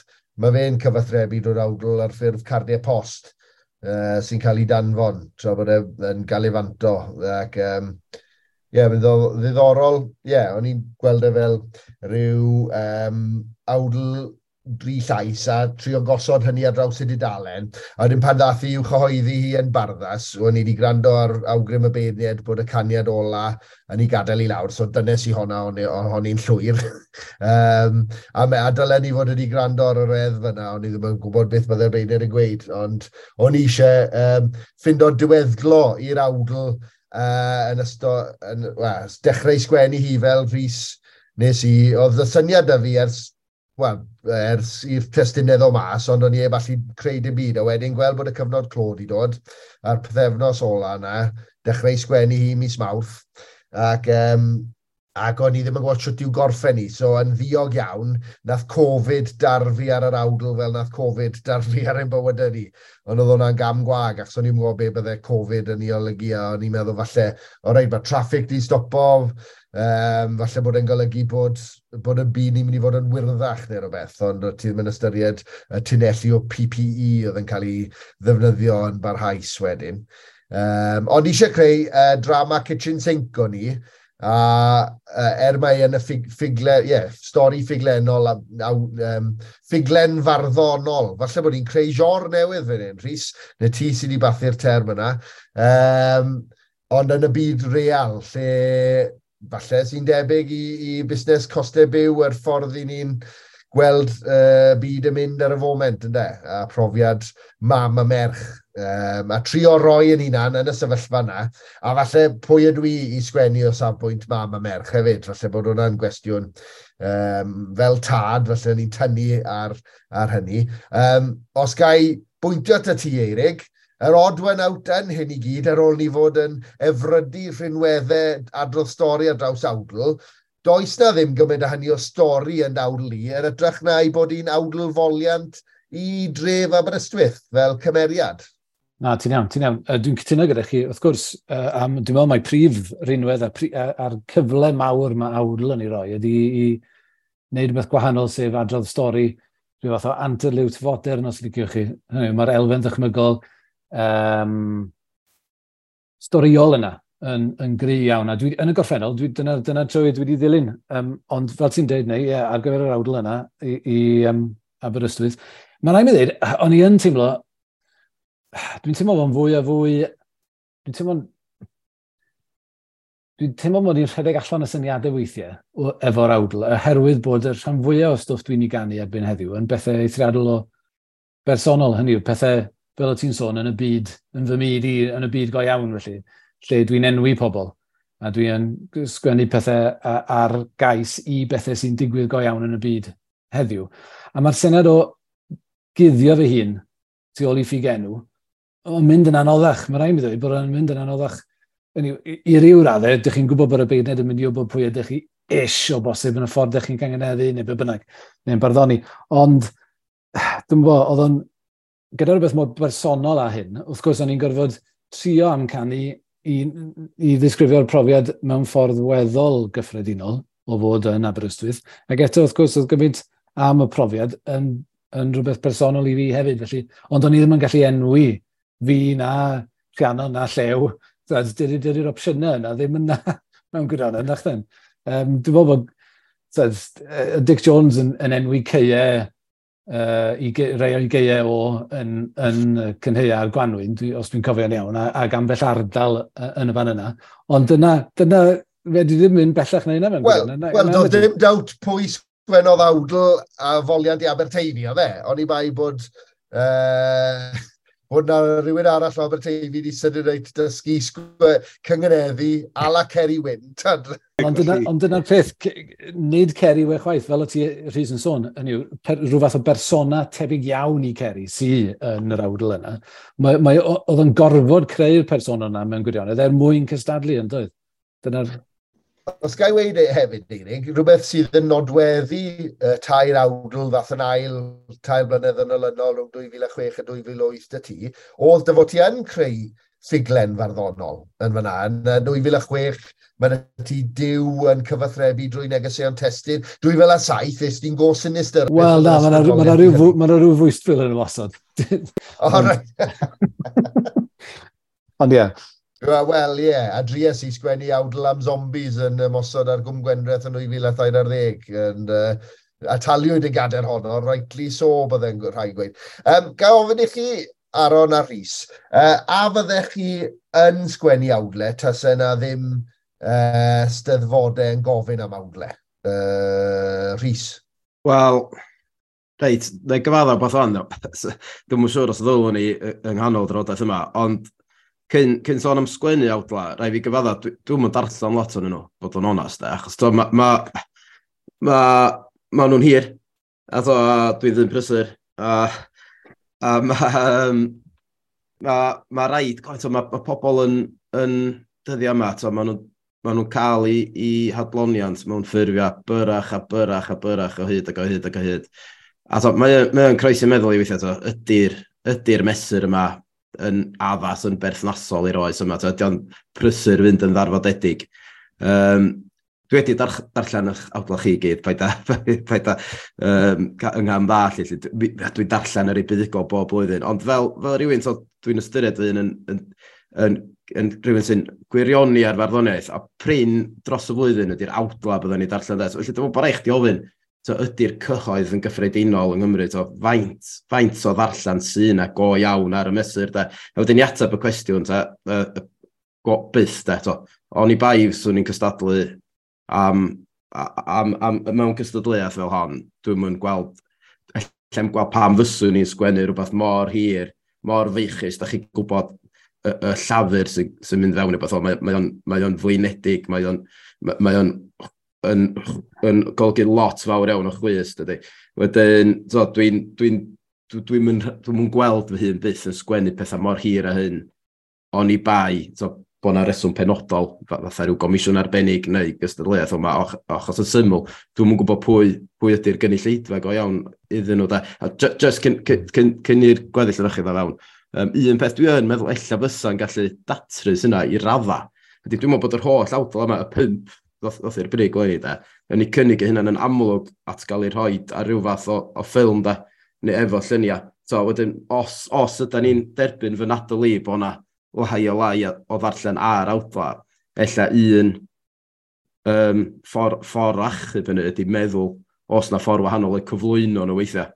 Mae fe'n cyfathrebu drwy'r awdl ar ffurf cardiau post sy'n cael ei danfon tra bod e yn galifanto. Ac ie, mae'n ddiddorol. Ie, o'n i'n gweld e fel rhyw awdl dri llais a trio gosod hynny ar draws y dudalen. A wedyn pan ddath i i'w chyhoeddi hi yn Barddas, o'n i wedi gwrando ar awgrym y beirniaid bod y caniad ola yn ei gadael i lawr, so dynes i honna, o'n i'n llwyr. A dylen ni fod wedi gwrando ar y reddf yna, o'n i ddim yn gwybod beth byddai'r beirniaid yn gweud, ond o'n i eisiau ffindo diweddglo i'r awdl yn ystod, well, dechrau sgwennu hi fel Rhys nes i, oedd y syniad da fi ers i'r testunau ddod mas, ond o'n i heb allu creu dim byd, a wedyn gweld bod y cyfnod clo 'di dod, a'r pythefnos ola yna, dechrau sgwennu hi mis Mawrth, ac o'n i ddim yn gwybod shwt i'w gorffen hi, so yn ddiog iawn, nath Covid darfu ar yr awdl fel nath Covid darfu ar ein bywydau ni. Ond oedd hwnna'n gam gwag, achos o'n i'n gwybod be bydde Covid yn ei olygu, a o'n i'n meddwl falle, o reit, mae traffic di stopo, falle bod e'n golygu bod y byd ni'n mynd i fod yn wyrddach neu rhywbeth, ond ti ddim yn ystyried y tunelli o PPE oedd yn cael ei ddefnyddio yn barhaus wedyn. Ond eisiau creu drama kitchen sink o'n i, a mae yn y stori ffuglenol, ffuglen farddonol. Falle bod ni'n creu genre newydd fan hyn, Rhys, neu ti sydd wedi bathu'r term yna. Ond yn y byd real, lle falle sy'n debyg i busnes costau byw yr ffordd i ni'n gweld byd yn mynd ar y foment, ynde? A profiad mam a merch. A trio roi yn hunan yn y sefyllfa yna, a falle pwy ydw i i sgwennu o safbwynt mam a merch hefyd, falle bod hwnna'n gwestiwn fel tad, falle ni'n tynnu ar hynny. Os ga i bwyntio at ti, Eirig, yr odd one out yn hyn i gyd, ar ôl ni fod yn efrydu rhinweddau adrodd stori ar draws awdl, does na ddim gymaint o hynny o stori yn awdl i, yn ytrach na i bod hi'n awdl foliant i dref Aberystwyth fel cymeriad. Na, ti'n iawn, ti'n iawn. Dwi'n cytuno gyda chi, wrth gwrs, dwi'n meddwl mai prif rinwedd a'r cyfle mawr mae awdl yn ei roi ydy i wneud rhywbeth gwahanol, sef adrodd stori, rhyw fath o anterliwt fodern, os liciwch chi. Mae'r elfen ddychmygol storiol yna yn gry iawn. A dwi, yn y gorffennol, dwi, dyna, dyna trywydd dwi wedi ddilyn. Ond fel ti'n deud, neu, yeah, ar gyfer yr awdl yna i Aberystwyth, mae'n rhaid mi ddweud, o'n i yn teimlo, dwi'n teimlo fo'n fwy a fwy, dwi'n teimlo mod i'n rhedeg allan y syniadau weithiau efo'r awdl, oherwydd bod y rhan fwyaf o stwff dwi'n ei ganu erbyn heddiw yn bethau eithriadol o bersonol, hynny yw, pethau fel o ti'n sôn yn y byd, yn fy myd i, yn y byd go iawn felly, lle dwi'n enwi pobl a dwi'n sgwennu pethau ar gais i bethau sy'n digwydd go iawn yn y byd heddiw. A mae'r syniad o guddio fy hun tu ôl i ffug enw, o'n mynd yn anoddach. Mae rhaid mi ddweud bod o'n mynd yn anoddach. Hynny yw, i ryw raddau, ydych chi'n gwybod bod y beirniaid yn mynd i wybod pwy ydych chi ish o bosib yn y ffordd ydych chi'n cynganeddu neu be bynnag, neu'n barddoni. Ond, dwi'n gwybod, oedd o'n, gyda rhywbeth mor bersonol â hyn, wrth gwrs o'n i'n gorfod trio amcanu i ddisgrifio'r profiad mewn ffordd weddol gyffredinol o fod yn Aberystwyth. Ac eto, wrth gwrs, oedd gymaint am y profiad yn rhywbeth personol i fi hefyd. Felly, ond o'n i ddim yn gallu enwi fi na Rhiannon na Llew. Dydy'r opsiynau yna ddim yna mewn gwirionedd, nach den. Dwi'n meddwl bod tyd, Dic Jones yn enwi caeau, i rei o'i gaeau o yn cynhaea a'r gwanwyn, os dwi'n cofio'n iawn, ac ambell ardal yn y fan yna. Ond dyna fe di ddim mynd bellach na hynna mewn Wel, gwirionedd. Wel, doedd dim doubt pwy sgwennodd awdl a foliant i Aberteifi, oedd e? Oni bai bod na rhywun arall o Aberteifi wedi sydyn reit dysgu cyngeneddu a la Ceri Wyn. Tyd. Ond dyna'r peth, nid Ceri we chwaith, fel o ti Rhys yn sôn, hynny yw, rhyw fath o bersona tebyg iawn i Ceri sy yn yr awdl yna. Oedd yn gorfod creu'r persona yna mewn gwirionedd er mwyn cystadlu, yn doedd? Dyna'r... Os ga i weud e hefyd, Eirig, rhywbeth sydd yn nodweddu tair awdl ddath yn ail 3 blynedd yn olynol rhwng 2006 a 2008 dy ti, oedd dy fod ti yn creu ffuglen farddonol yn fyna. Yn 2006, mae ti Duw yn cyfathrebu drwy negeseuon testun. 2007, es ti'n go sinister. Wel, na, mae yna rhyw fwystfil yn ymosod. O, reit. Ond ie. Wel, ie, yeah, a dries i sgwennu awdl am zombies yn ymosod ar Gwm Gwendraeth yn 2013. And, a taliwyd y gader honno, rightly so, bydde'n rhaid gweud. Ga ofyn i chi, Aaron a Rhys, a fyddech chi yn sgwennu awdle tase na ddim steddfodau yn gofyn am awdle? Rhys? Wel, reit, na i gyfadda beth o'n, dwi'm yn siŵr os ddylwn ni yng nghanol drafodaeth yma, ond cyn sôn am sgwennu awdla, rhaid fi gyfadda, dwi'm yn darllen lot o'n nhw, bod yn onast, de, achos to, ma nhw'n hir, a to, dwi ddim prysur, a ma rhaid, to, ma pobl yn dyddiau yma, to, ma nhw'n cael i hadloniant mewn ffurfiau byrach a byrach a byrach o hyd ac o hyd ac o hyd. A to, mae o'n croesi meddwl i weithiau, to, ydy'r mesur yma yn addas, yn berthnasol i'r oes yma. To, ydy o'n prysur fynd yn ddarfodedig. Dwi wedi darllen eich awdla chi gyd, paid a yng ngham ddall, lle. Dwi'n darllen yr ei buddugol bob blwyddyn, ond fel rhywun, so, dwi'n ystyried fy hun yn rhywun sy'n gwirioni ar farddoniaeth, a prin dros y flwyddyn ydy'r awdla byddwn ni darllen. De. So, felly dwi'n meddwl bod rhaid chdi ofyn, so, ydy'r cyhoedd yn gyffredinol yng Nghymru, so, faint o ddarllen sy'n na go iawn ar y mesur, de. A wedyn i ateb y cwestiwn, ta, go, byth, de, to. Oni bai swn i'n cystadlu am mewn cystadleuaeth fel hon, dwi'm yn gweld, allai'm gweld pam fyswn i'n sgwennu rhywbeth mor hir, mor feichus, da chi'n gwybod y llafur sy mynd fewn i beth o, mae o'n flinedig, mae o'n yn golygu lot fawr iawn o chwys, dydy. Wedyn, so, dwi'm yn gweld fy hun byth yn sgwennu pethau mor hir â hyn, oni bai, so, bod 'na reswm penodol, fatha rhyw gomisiwn arbennig neu gystadleuaeth, ond achos yn syml, dwi'm yn gwybod pwy ydy'r gynulleidfa go iawn iddyn nhw. Da. A just cyn i'r gweddill yn chi ddod fewn, un peth dwi yn meddwl ella fysa'n gallu datrys yna i radda, ydy dwi'n meddwl bod yr holl awdl yma, y pump ddoth i'r brig leni, da, yn ei cynnig eu hunain yn amlwg at gael ei rhoi ar ryw fath o ffilm, da, neu efo lluniau. So, wedyn, os ydy ni'n derbyn fy nadl i bod 'na lai o lai o ddarllen ar awdla, Ella un ffordd achub hynny ydy meddwl os na ffordd wahanol eu cyflwyno nhw weithiau.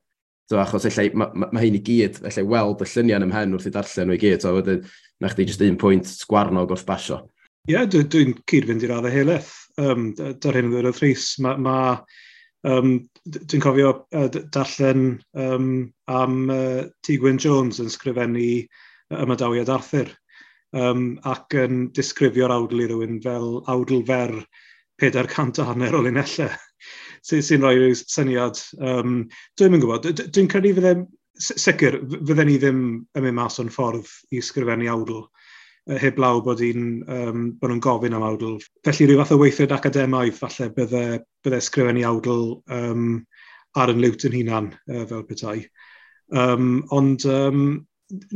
So, achos ella, ma hyn i gyd, ella weld y lluniau yn ymhen wrth i darllen nhw i gyd, so wedyn, na chdi jyst un pwynt sgwarnog wrth basio. Ie, yeah, dwi'n cyd-fynd i'r raddau helaeth. Da'r hyn ddweud Rhys, dwi'n cofio darllen am T. Gwyn Jones yn sgrifennu Ymadawiad Arthur ac yn disgrifio'r awdl i rywun fel awdl fer 450 o linellau sy'n rhoi rhyw syniad. Dwi'n yn gwybod, dwi'n credu fydde, sicr, fydden ni ddim yn mynd mas o'n ffordd i sgrifennu awdl, heblaw bod nhw'n gofyn am awdl. Felly rhyw fath o weithred academaidd, falle bydde sgrifennu awdl ar yn liwt yn hunan, fel petai. Ond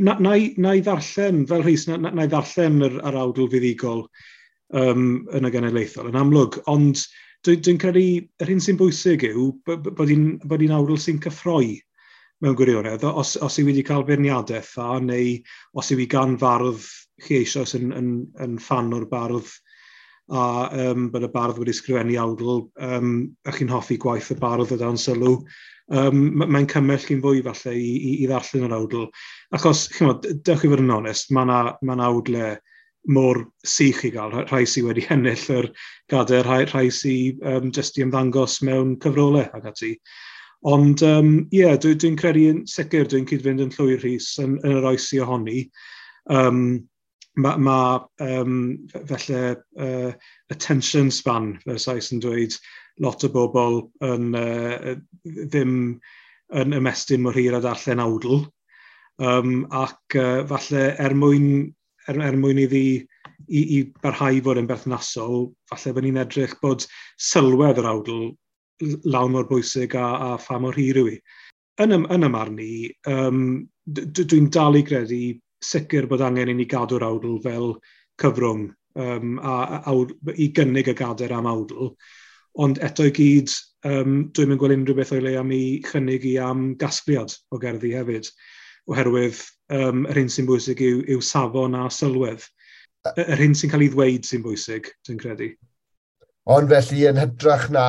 na i ddarllen, fel Rhys, na i ddarllen yr awdl fuddugol yn y genedlaethol, yn amlwg, ond dwi'n credu yr hyn sy'n bwysig yw bod hi'n awdl sy'n cyffroi mewn gwirionedd. Os yw wedi cael beirniadaeth dda, neu os yw hi gan fardd chi eisoes yn ffan o'r bardd, a bod y bardd wedi sgrifennu awdl, a chi'n hoffi gwaith y bardd o dan sylw, mae'n cymell chi'n fwy falle i ddarllen yr awdl. Achos, chimod, dewch i fod yn onest, mae yna awdle mor sych i gael, rhai sydd wedi ennill yr gadair, rhai sydd jyst i ymddangos mewn cyfrolau ac ati. Ond ie, yeah, dwi'n credu yn sicr, dwi'n cyd-fynd yn llwyr Rhys yn yr oes i ohoni. Felly attention span, fel Sais yn dweud, lot o bobl yn, ddim yn ymestyn mor hir a darllen awdl. Ac falle er mwyn iddi i barhau fod yn berthnasol, falle bod ni'n edrych bod sylwedd yr awdl lawn mor bwysig a pha mor hir yw hi. Yn y marn i, dwi'n dal i gredu sicr bod angen i ni gadw'r awdl fel cyfrwng a i gynnig y gadair am awdl. Ond eto i gyd, dwi'n mynd gweld unrhyw beth o'i le am ei chynnig i am gasgliad o gerddi hefyd, oherwydd yr hyn sy'n bwysig yw safon a sylwedd. Yr hyn sy'n cael ei ddweud sy'n bwysig, dwi'n credu. Ond felly yn hytrach na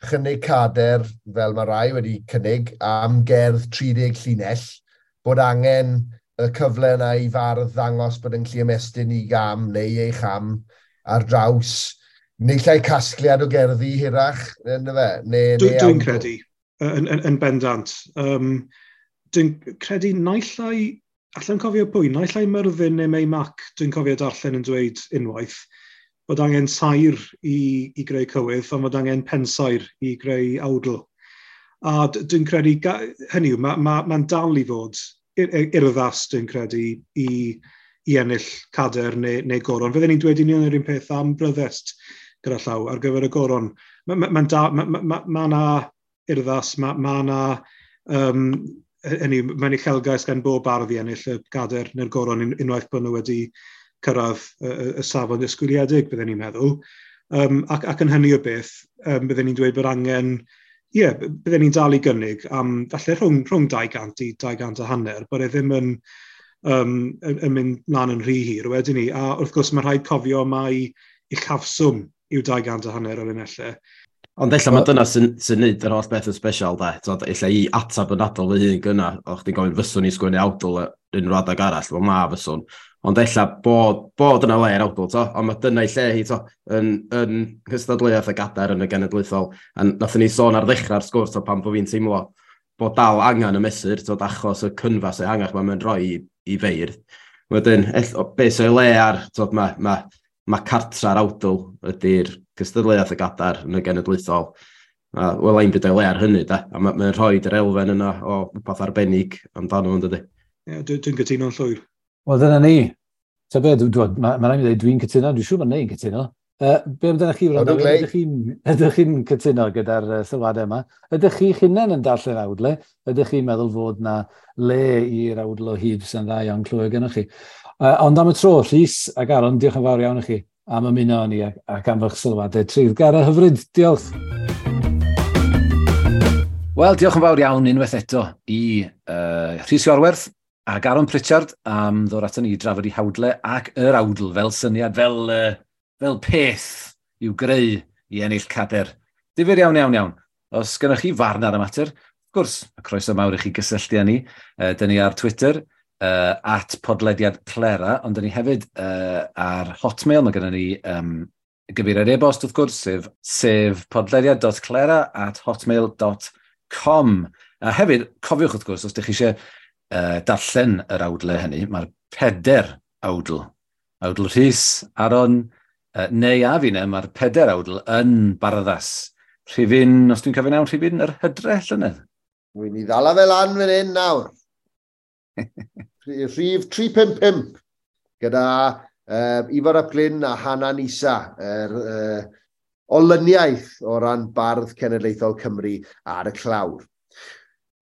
chynnig cadair, fel mae rai wedi cynnig, am gerdd 30 llinell, bod angen y cyfle yna i fardd ddangos bod yn gallu ymestyn i gam neu ei cham ar draws, neu llai casgliad o gerddi hirach, ynddo fe? Dwi'n credu, yn bendant. Dwi'n credu naill ai, allai'n cofio pwy, naill ai Myrddin neu Mei Mac, dwi'n cofio darllen yn dweud unwaith, bod angen sair i greu cywydd, ond bod angen pensair i greu awdl. A dwi'n credu, hynny yw, mae'n dal i fod urddas, dwi'n credu, i ennill cadair neu goron. Fydden ni'n dweud union yr un peth am bryddest gyda llaw ar gyfer y goron. Mae'n na urddas, mae na... hynny, mae'n uchelgais gan bob bardd i ennill y gadair neu'r goron unwaith bod nhw wedi cyrraedd y safon disgwyliedig, bydden ni'n meddwl. Ac yn hynny o beth, bydden ni'n dweud bod angen, ie, yeah, bydden ni'n dal i gynnig am falle rhwng 200 i 250, bod e ddim yn mynd mlaen yn rhy hir wedyn ni. A wrth gwrs mae rhaid cofio mai uchafswm yw 250 o linellau. Ond ella mae dyna sy'n neud yr holl beth yn special, da. Ella i atab yn adol fy hun gynna, o'ch chdi'n gofyn fyswn i sgwennu awdl unrhyw adeg arall, wel na fyswn. Ond ella bod yna le i'r awdl, to. Ond mae dyna i lle hi, to, yn cystadleuaeth y gadair yn y genedlaethol. A nathon ni sôn ar ddechrau'r sgwrs, to, pan bod fi'n teimlo bod dal angen y mesur, to, achos y cynfas ehangach mae'n rhoi i feirdd. Wedyn, beth sy'n le ar, to, mae cartra'r awdl ydy'r cystadleuaeth y gadair yn y genedlaethol. Wel, ein byd o'i le ar hynny, da. A mae'n rhoi yr elfen yna o rhywbeth arbennig amdano fo'n dydy. Ie, dwi'n cytuno'n llwyr. Wel, dyna ni. Ta be, mae'n rhaid i ddweud dwi'n cytuno, dwi'n siŵr bod neu'n cytuno. Be amdanoch chi, Wrando? Ydych chi'n cytuno gyda'r sylwadau yma? Ydych chi'ch hunain yn darllen awdle? Ydych chi'n meddwl fod na le i'r awdl o hyd sy'n dda iawn clywed gennych chi? Ond am y tro, Rhys ac Aron, diolch yn fawr iawn i chi am ymuno â ni ac am eich sylwadau treiddgar a hyfryd. Diolch. Wel, diolch yn fawr iawn unwaith eto i Rhys Iorwerth ac Aron Pritchard am ddod ato ni i drafod i hawdle ac yr awdl fel syniad, fel fel peth i'w greu i ennill cader. Difyr iawn, iawn, iawn. Os gennych chi farn ar y mater, wrth gwrs, y croeso mawr i chi gysylltu â ni. Dyn ni ar Twitter, @podlediadclera, ond dyn ni hefyd ar Hotmail. Mae gennym ni gyfeiriad e-bost, wrth gwrs, sef podlediad.clera@hotmail.com. A hefyd, cofiwch wrth gwrs, os ydych chi eisiau darllen yr awdlau hynny, mae'r 4 awdl. Awdl Rhys, Aron, neu a fi, mae'r 4 awdl yn Barddas. Rhifyn, os dwi'n cofio'n iawn, rhifyn yr hydre llynedd. Wy'n i ddala fel lan fan hyn nawr. Rhif 355 gyda Ifor ap Glyn a Hanan Isa, yr olyniaeth o ran Bardd Cenedlaethol Cymru ar y clawr.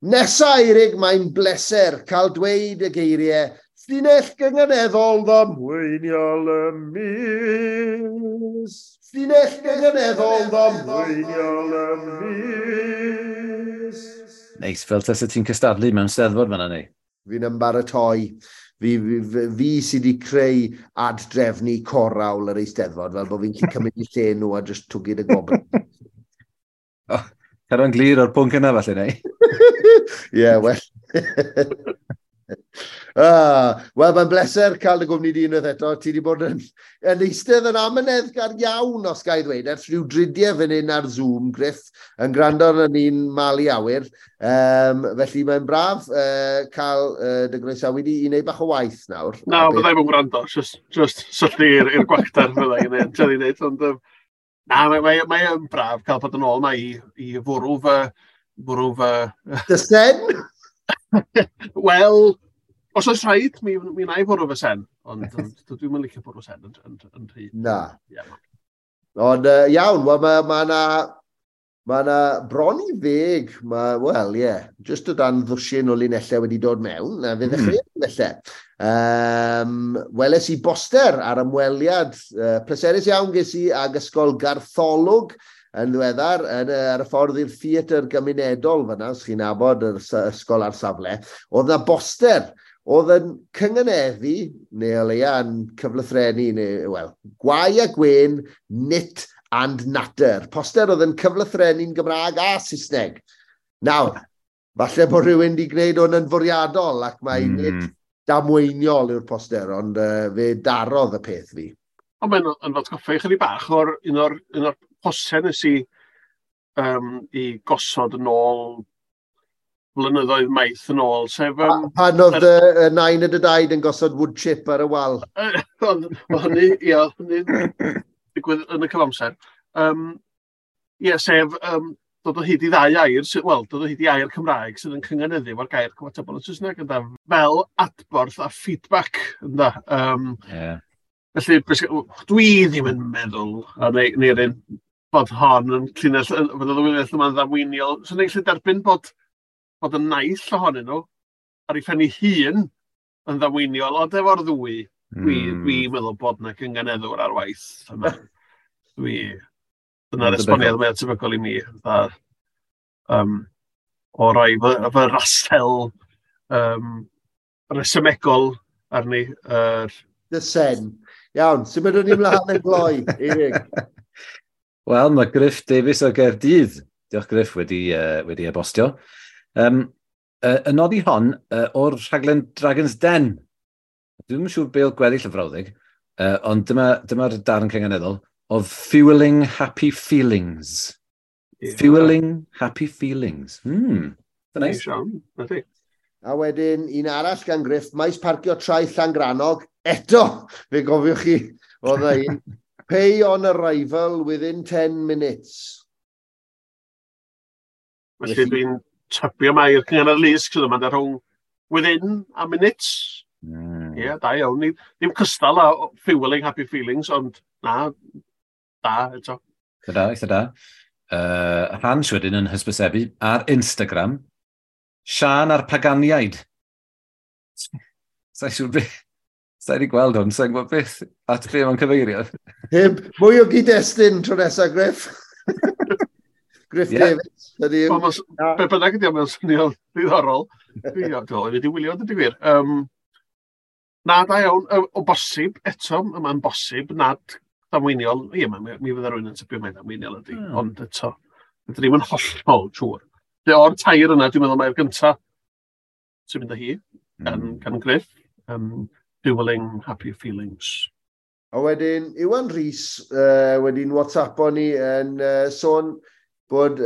Nesa, Eirig, mae'n bleser cael dweud y geiriau llinell gynganeddol ddamweiniol y mis. Llinell gynganeddol ddamweiniol y mis. Neis, fel tasa ti'n cystadlu mewn steddfod fan'na, neu? Fi'n ymbaratoi. Fi sydd wedi creu ad-drefnu corawl yr Eisteddfod, fel bod fi'n gallu cymryd i lle nhw a just twgyd y gobl. Oh, cadw'n glir o'r pwnc yna, falle, neu? Ie, well. Wel, mae'n bleser cael dy gwmni di unwaith eto. Ti wedi bod yn eistedd yn amyneddgar iawn, os ga i ddweud, ers rhyw dridiau fan hyn ar Zoom, Griff, yn gwrando arno ni'n malu awyr. Felly mae'n braf cael dy groesawu di i wneud bach o waith nawr. Na, byddai ddim yn gwrando, just syllu i'r gwacter fyddai yn ei wneud, ond na, mae'n braf cael bod yn ôl yma i fwrw fy... Dy sen? Wel, os oes rhaid, mi wna i fwrw fy sen, ond dwi'm yn licio bwrw sen yn rhy. Na. Yeah. Ond iawn, wel, mae na bron i 10, wel, ie, just o dan ddwsin o linellau wedi dod mewn, a fe ddechreuodd felly. Weles i boster ar ymweliad pleserus iawn ges i ag Ysgol Gartholwg yn ddiweddar, ar y ffordd i'r theatr gymunedol fyna, os chi'n nabod yr ysgol ar safle, oedd na boster oedd yn cynganeddu, neu o leia yn cyflythrennu, neu, wel, gwau a gwên, nit and natter. Poster oedd yn cyflythrennu'n Gymraeg a Saesneg. Nawr, falle bod rhywun wedi gwneud hwn yn fwriadol, ac mae nid damweiniol yw'r poster, ond fe darodd y peth fi. Ond mae'n yn atgoffa i chydig bach o'r un o'r posau nes i i gosod yn ôl blynyddoedd maith yn ôl, sef... Pan oedd y nain y dy daid yn gosod wood chip ar y wal? Ond hynny, ie, hynny'n digwydd yn y cyfamser. Ie, sef dod o hyd i ddau air, wel, dod o hyd i air Cymraeg sydd yn cynganeddu efo'r gair cyfatebol yn Saesneg, ynda, fel adborth a feedback, ynda. Felly, dwi ddim yn meddwl, a neu'r un, bod hon yn llinell, bod y linell yma'n ddamweiniol. So, ni'n gallu derbyn bod y naill ohonyn nhw ar ei phen ei hun yn ddamweiniol, ond efo'r ddwy, dwi'n meddwl bod na cynganeddwr ar waith yma. Dyna'r esboniad mwyaf tebygol i mi. O roi fy rasel resymegol arni. Dy sen. Iawn, symudwn ni mlaen yn gloi, Eirig. Wel, mae Griff Davies o Gaerdydd, diolch Griff, wedi e-bostio. Y nodi hon o'r rhaglen Dragon's Den. Dwi'm yn siŵr be oedd gweddill y frawddeg, ond dyma'r darn cynganeddol of fueling happy feelings. Yeah. Fueling happy feelings. Nice. A wedyn, un arall gan Griff, maes parcio Traeth Llangrannog, eto, fe gofiwch chi, oedd un, pay on arrival within 10 minutes. Felly dwi'n tybio mai'r cynganedd lusg sydd yma rhwng within a minutes. Ie, da iawn. Ddim cystal â fueling happy feelings, ond na, da eto. Eitha da, eitha da. Hans wedyn yn hysbysebu ar Instagram, Sian a'r Paganiaid. Sa'n siŵr beth. Sa'n wedi gweld hwn, sa'n gwybod beth at be mae'n cyfeirio. Heb, mwy o gyd-destun tro nesaf, Griff. Griff Davies. Be bynnag ydi o, mae'n swnio'n ddiddorol. Dwi wedi wylio, dwi gwir. Na, da iawn. O bosib, eto, mae'n bosib nad Damweiniol, ie, mi fydda rhywun yn tybio mai damweiniol ydy, ond eto, ydyn ni'n hollol siŵr. O'r tair yna, dwi'n meddwl mai'r gyntaf sy'n mynd â hi, gan Griff, Dueling Happy Feelings. A wedyn, Iwan Rhys wedi'n WhatsAppo ni yn sôn bod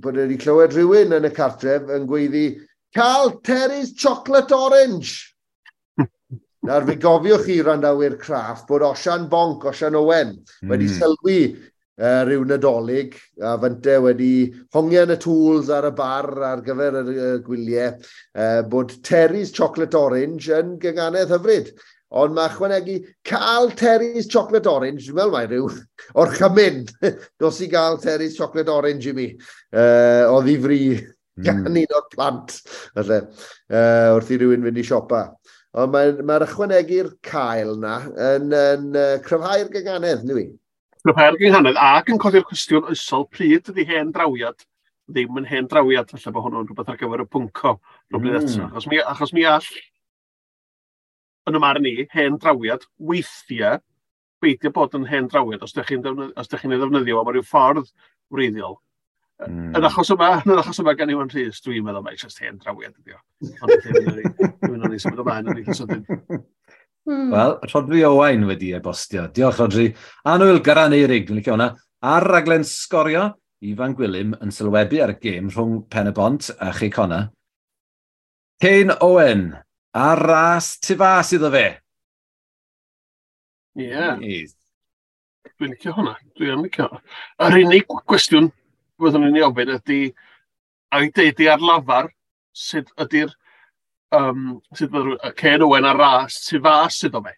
wedi clywed rhywun yn y cartref yn gweiddi, "Cael Terry's Chocolate Orange!" Nawr, fe gofiwch chi, randawyr craff, bod Osian Bonc, Osian Owen, wedi sylwi rhyw Nadolig, a fynte wedi hongian y tools ar y bar ar gyfer y gwyliau, bod Terry's Chocolate Orange yn gynganedd hyfryd. Ond mae ychwanegu cael Terry's Chocolate Orange, dwi'n meddwl mai rhyw orchymyn, dos i gael Terry's Chocolate Orange i mi, o ddifri gan un o'r plant, falle, wrth i rywun fynd i siopa. Ond mae ychwanegu'r cael na yn cryfhau'r gynganedd, nid i? Cryfhau'r gynghanedd ac yn codi'r cwestiwn oesol pryd ydy hen drawiad ddim yn hen drawiad, falle bod hwnnw'n rhywbeth ar gyfer y pwnco rhywbryd eto. Achos mi all, yn y marn i, hen drawiad weithiau beidio bod yn hen drawiad os ydych chi'n ei ddefnyddio am ryw ffordd wreiddiol. Yn achos yma gan Iwan Rhys, dwi'n meddwl mai jyst hen drawiad ydi o. Ond dwi'n meddwl ni symud ymlaen yn eitha sydyn. Wel, Rhodri Owain wedi e-bostio. Diolch, Rhodri. Anwyl Garan Eirig, dwi'n licio hwnna. Ar raglen Sgorio, Ifan Gwilym yn sylwebu ar y gêm rhwng Pen y Bont a Chei Connah. Kane Owen, ar ras tu fas iddo fe. Ie. Yeah. Dwi'n licio hwnna. Dwi'n licio. Yr unig gwestiwn fyddwn ni'n ei ofyn ydy, a i deud i ar lafar, sut ydy'r sut bydd Kane Owen ar ras tu fas iddo fe.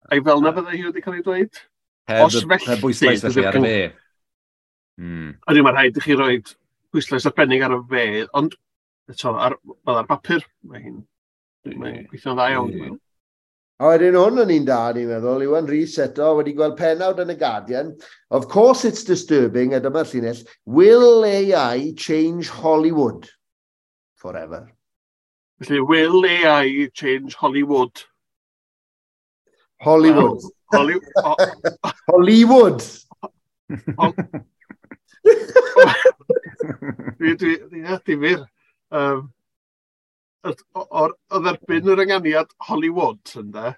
Ai fel na fydde hi wedi cael ei dweud? Os felly, heb bwyslais felly ar y fe. Ydy, mae rhaid i chi roi pwyslais arbennig ar y fe, ond eto, fel ar bapur, mae'n gweithio'n dda iawn. A wedyn hwn yn un da, ni'n meddwl, Iwan Rhys eto wedi gweld pennawd yn y Guardian. "Of course it's disturbing," a dyma'r llinell, "Will AI change Hollywood forever?" Felly, will AI change Hollywood? Hollywood. Well, Hollywood. Dwi, difyr. O'r o dderbyn yr ynganiad Hollywood, ynde,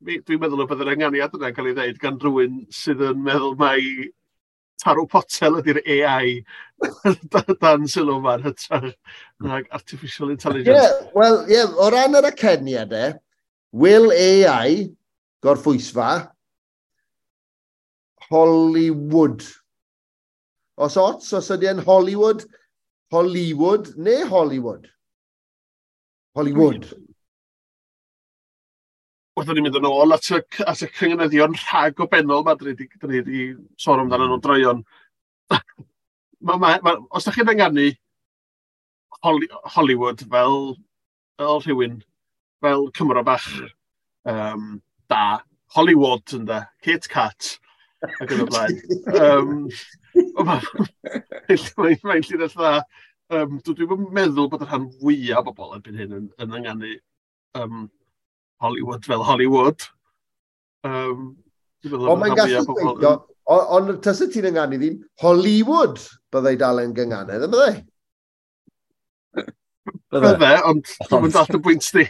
dwi'n meddwl y bydd yr ynganiad yna'n cael ei ddeud gan rhywun sydd yn meddwl mai tarw potel ydy'r AI dan sylw yma'n hytrach nag artificial intelligence. Yeah, wel, yeah, o ran yr aceniad e, will AI, gorffwysfa, Hollywood. Os ots, os ydy e'n Hollywood, Hollywood neu Hollywood? Hollywood. Wrth ni'n mynd yn ôl at y cynganeddion rhag-obenol ma, dyn ni wedi sôn amdano nhw droion. Os da chi'n ynganu Hollywood fel rhywun, fel Cymro bach da, Hollywood ynde, Kit Kat, ac yn y blaen. Mae'n llinell dda. Dwi'n meddwl bod y rhan fwyaf o bobl erbyn hyn yn ynganu Hollywood fel Hollywood. Ond mae'n gallu gweithio, ond tysa ti'n ynganu ddim, Hollywood byddai dal yn gynganedd, yn byddai? Bydde, ond dwi'n mynd at y bwynt di.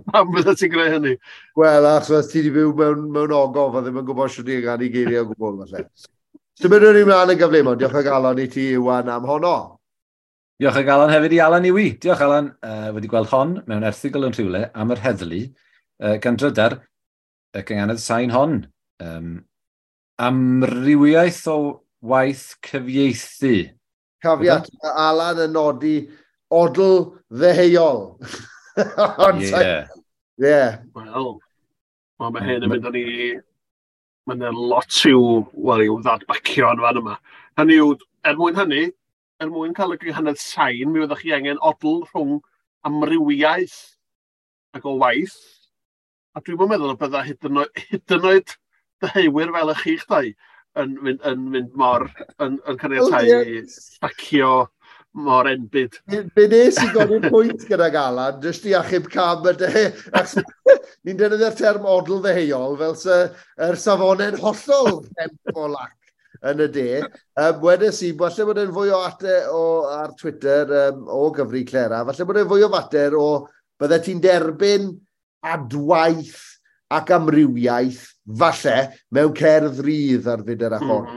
Pam bydde ti'n greu hynny? Wel, achos ti wedi byw mewn ogof a ddim yn gwybod sut i ynganu geiriau o gwbl, falle. Symudwn ni mlaen yn gyflym, ond diolch o galon i ti, Iwan, am honno. Diolch o galon hefyd i Alan Iwi. Diolch, Alan, wedi gweld hon mewn erthygl yn rhywle am yr heddlu gan drydar y gynganedd sain hon. Amrywiaeth o waith cyfieithu. Cafiat, mae Alan yn nodi odl ddeheuol. Ond yeah. Wel, mae hyn yn mynd â ni. Mae'n lot i'w, wel, i'w ddadbacio yn fan yma. Hynny yw, er mwyn hynny, er mwyn cael y gynghanedd sain, mi fyddwch chi angen odl rhwng amrywiaeth ac o waith. A dwi'n meddwl y bydda hyd yn oed deheuwyr fel y chi'ch dau yn mynd mor, yn caniatáu llacio mor enbyd. Be nes i godi'r pwynt gyda Alan, jyst i achub cam y de. Ni'n defnyddio'r term odl ddeheuol fel sy yr safonau'n hollol hemp o lac yn y de. Wedes i, falle bod e'n fwy o ate o, ar Twitter o gyfri Clera, falle bod e'n fwy o fater o bydde ti'n derbyn adwaith ac amrywiaeth, falle, mewn cerdd rydd ar fyd yr achor.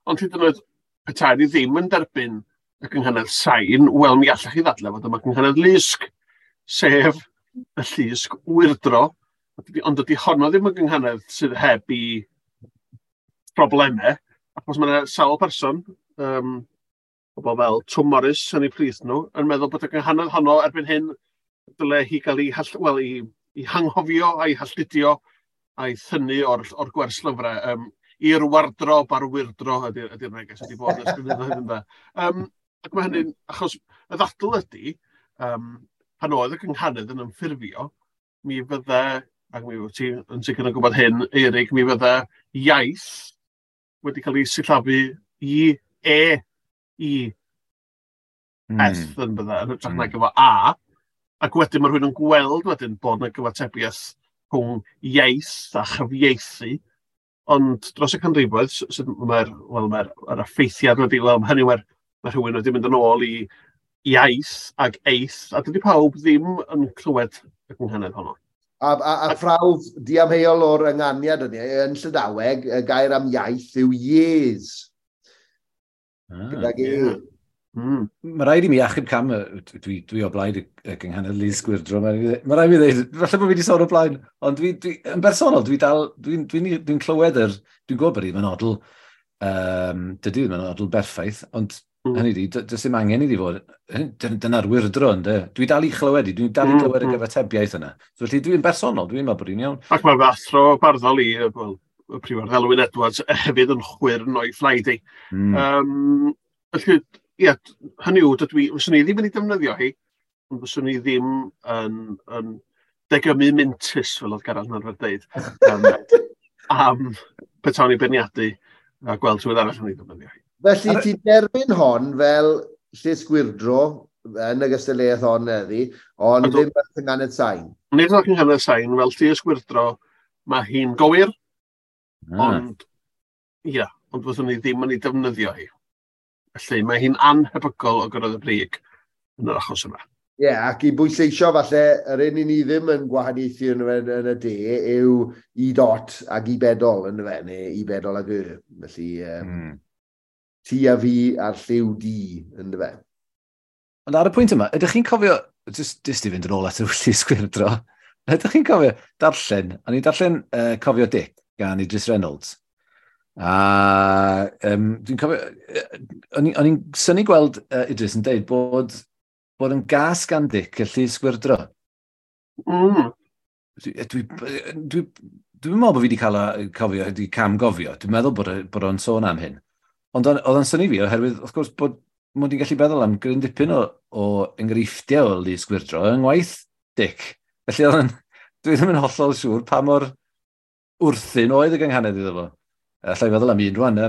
Ond hyd yn oed, petai ni ddim yn derbyn y gynghanedd sain, wel, mi allech chi ddadlau fod yma gynghanedd lusg, sef y llusg wyrdro, ond dydy honno ddim yn gynghanedd sydd heb i problemau, achos mae yna sawl person, pobl fel Twm Morris yn eu plith nhw, yn meddwl bod y gynghanedd honno erbyn hyn dyle hi gael ei, well, i hanghofio a'i halltudio a'i thynnu o'r gwerslyfrau. I'r wardrob a'r wyrdro ydy'r neges wedi bod ers blynyddoedd ynde. Ac mae hynny'n, achos y ddadl ydy, pan oedd y gynghanedd yn ymffurfio, mi fydde, ac mi wyt ti yn sicr yn gwybod hyn, Eirig, mi fydde iaith wedi cael ei sillafu i E, I, S yn bydde, yn hytrach nag efo A, ac wedyn mae rhywun yn gweld wedyn bod yna gyfatebiaeth rhwng iaith a chyfieithu, ond dros y canrifoedd, mae'r well, mae effeithiad wedi, wel, hynny mae rhywun wedi mynd yn ôl i iaith ag eith, a dydy pawb ddim yn clywed y gynghanedd honno. A phrawf diamheuol o'r ynganiad yna, yn Llydaweg, y gair am iaith yw yes. Gydag e. Yeah. Mae rhaid i mi achub cam, dwi o blaid y gynghanedd lusg wyrdro, mae rhaid i mi ddweud, falle bod fi wedi sôn o blaen, ond dwi, yn bersonol, dwi dal, dwi'n clywed dwi'n gwybod bod hi ddim yn odl, dydy ddim yn odl berffaith, ond hynny di, does dim angen iddi fod, dyna'r wyrdro, ynde? Dwi dal i chlywed i, dwi'n dal i glywed y gyfatebiaeth yna. So, felly dwi'n bersonol, dwi'n meddwl bod hi'n iawn. Ac mae fy athro barddol i, well, y prifardd Elwyn Edwards, hefyd yn chwyrn o'i phlaid i. Felly, ie, hynny yw, fyswn i ddim yn ei defnyddio hi, ond fyswn i ddim yn degymu mintus, fel oedd Gareth yn arfer dweud, am petawn i beirniadu a gweld rhywun arall yn ei defnyddio hi. Felly ti'n derbyn hon fel llys gwyrdro yn y gystadleuaeth hon heddi, ond ddim fel cynghanedd sain. Nid fel cynghanedd sain, fel llys gwyrdro, mae hi'n gywir, ond ia, ond fyddwn ni ddim yn ei defnyddio hi. Felly mae hi'n anhebygol o gyrraedd y brig yn yr achos yma. Ie, yeah, ac i bwysleisio falle, yr un i ni ddim yn gwahaniaethu yn y de yw i dot ag i bedol yn y fe, neu i bedol ag y. Felly, ti a fi a'r lliw di yn y fe. Ond ar y pwynt yma, ydych chi'n cofio, jyst i fynd yn ôl at y llys gwyrdro, ydych chi'n cofio darllen, o'n i'n darllen Cofio Dic gan Idris Reynolds. A dwi'n cofio, o'n i'n synnu gweld Idris yn deud bod yn gas gan Dic y llys gwyrdro. Dwi'n meddwl bod fi wedi cael cofio, wedi cam gofio. Dwi'n meddwl bod o'n sôn am hyn. Ond oedd o'n synnu fi oherwydd, wrth gwrs, bod mod i'n gallu meddwl am gryn dipyn o enghreifftiau o lys gwyrdro yng ngwaith Dic. Felly dwi ddim yn hollol siŵr pa mor wrthyn oedd y gynghanedd iddo fo. Alla i feddwl am un rwan,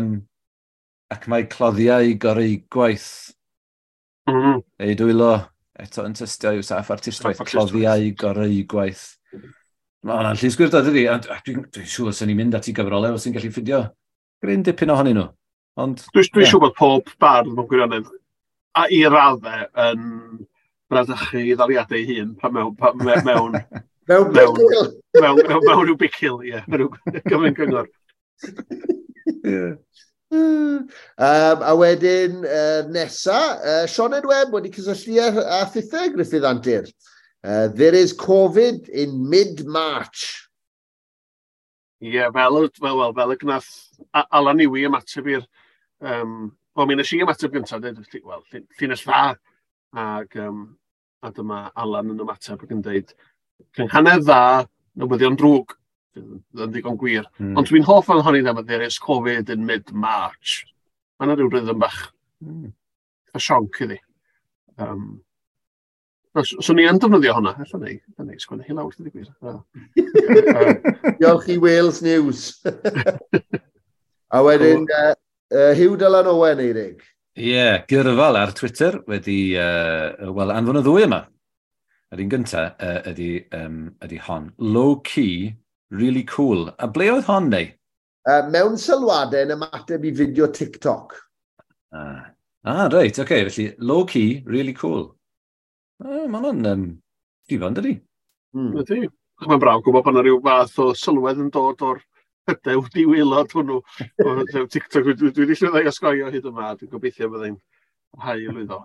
ac mae cloddiau goreu gwaith. Ei dwylo, eto yn tystio i'w saff artistwaith, cloddiau goreu gwaith. Mae hwnna'n llys gwyrdro, dydy? Dwi'n siŵr sy'n ni'n mynd at i gyfrolau os ti'n gallu ffindio gryn dipyn ohonyn nhw. Ond, Dwi'n siŵr bod pob bardd mewn gwirionedd a i raddau yn bradychu i ddaliadau ei hun pan mewn mewn rhyw bicil, ie, mewn rhyw gyfryn gyngor. A wedyn nesa, Sioned Webb wedi cysylltu â thithau Gruffydd Antur. There is Covid in mid-March. Ie, yeah, fel y gnath Alan Iwi ymateb i'r... Wel, mi nes i ymateb gyntaf, dweud, wel, llinell dda. Ac, a dyma Alan yn ymateb ac yn dweud, cynghanedd dda, newyddion drwg, yn ddigon gwir. Ond dwi'n hoff o'n honni ddim, there is Covid in mid-March. Mae yna rhyw rhythm bach, a sionc iddi. So ni yn defnyddio hwnna, ella ni, sgwennu hi lawr, dweud y gwir. Diolch i Wales News. A wedyn, Huw Dylan Owen, Eirig. Ie, yeah, Gyrfal ar Twitter wedi, wel, anfon y ddwy yma. Yr un gyntaf ydy hon. Low key, really cool. A ble oedd hon, neu? Mewn sylwadau yn ymateb i fideo TikTok. Ah, reit, oce. Okay. Felly, low key, really cool. Mae hwnna'n difon, dydy? Ydy. Mae'n braf gwybod bod yna rhyw fath o sylwedd yn dod o'r hydew diwaelod hwnnw. O TikTok, dwi wedi llwyddo i osgoi o hyd yma, dwi'n gobeithio byddai'n parhau i lwyddo.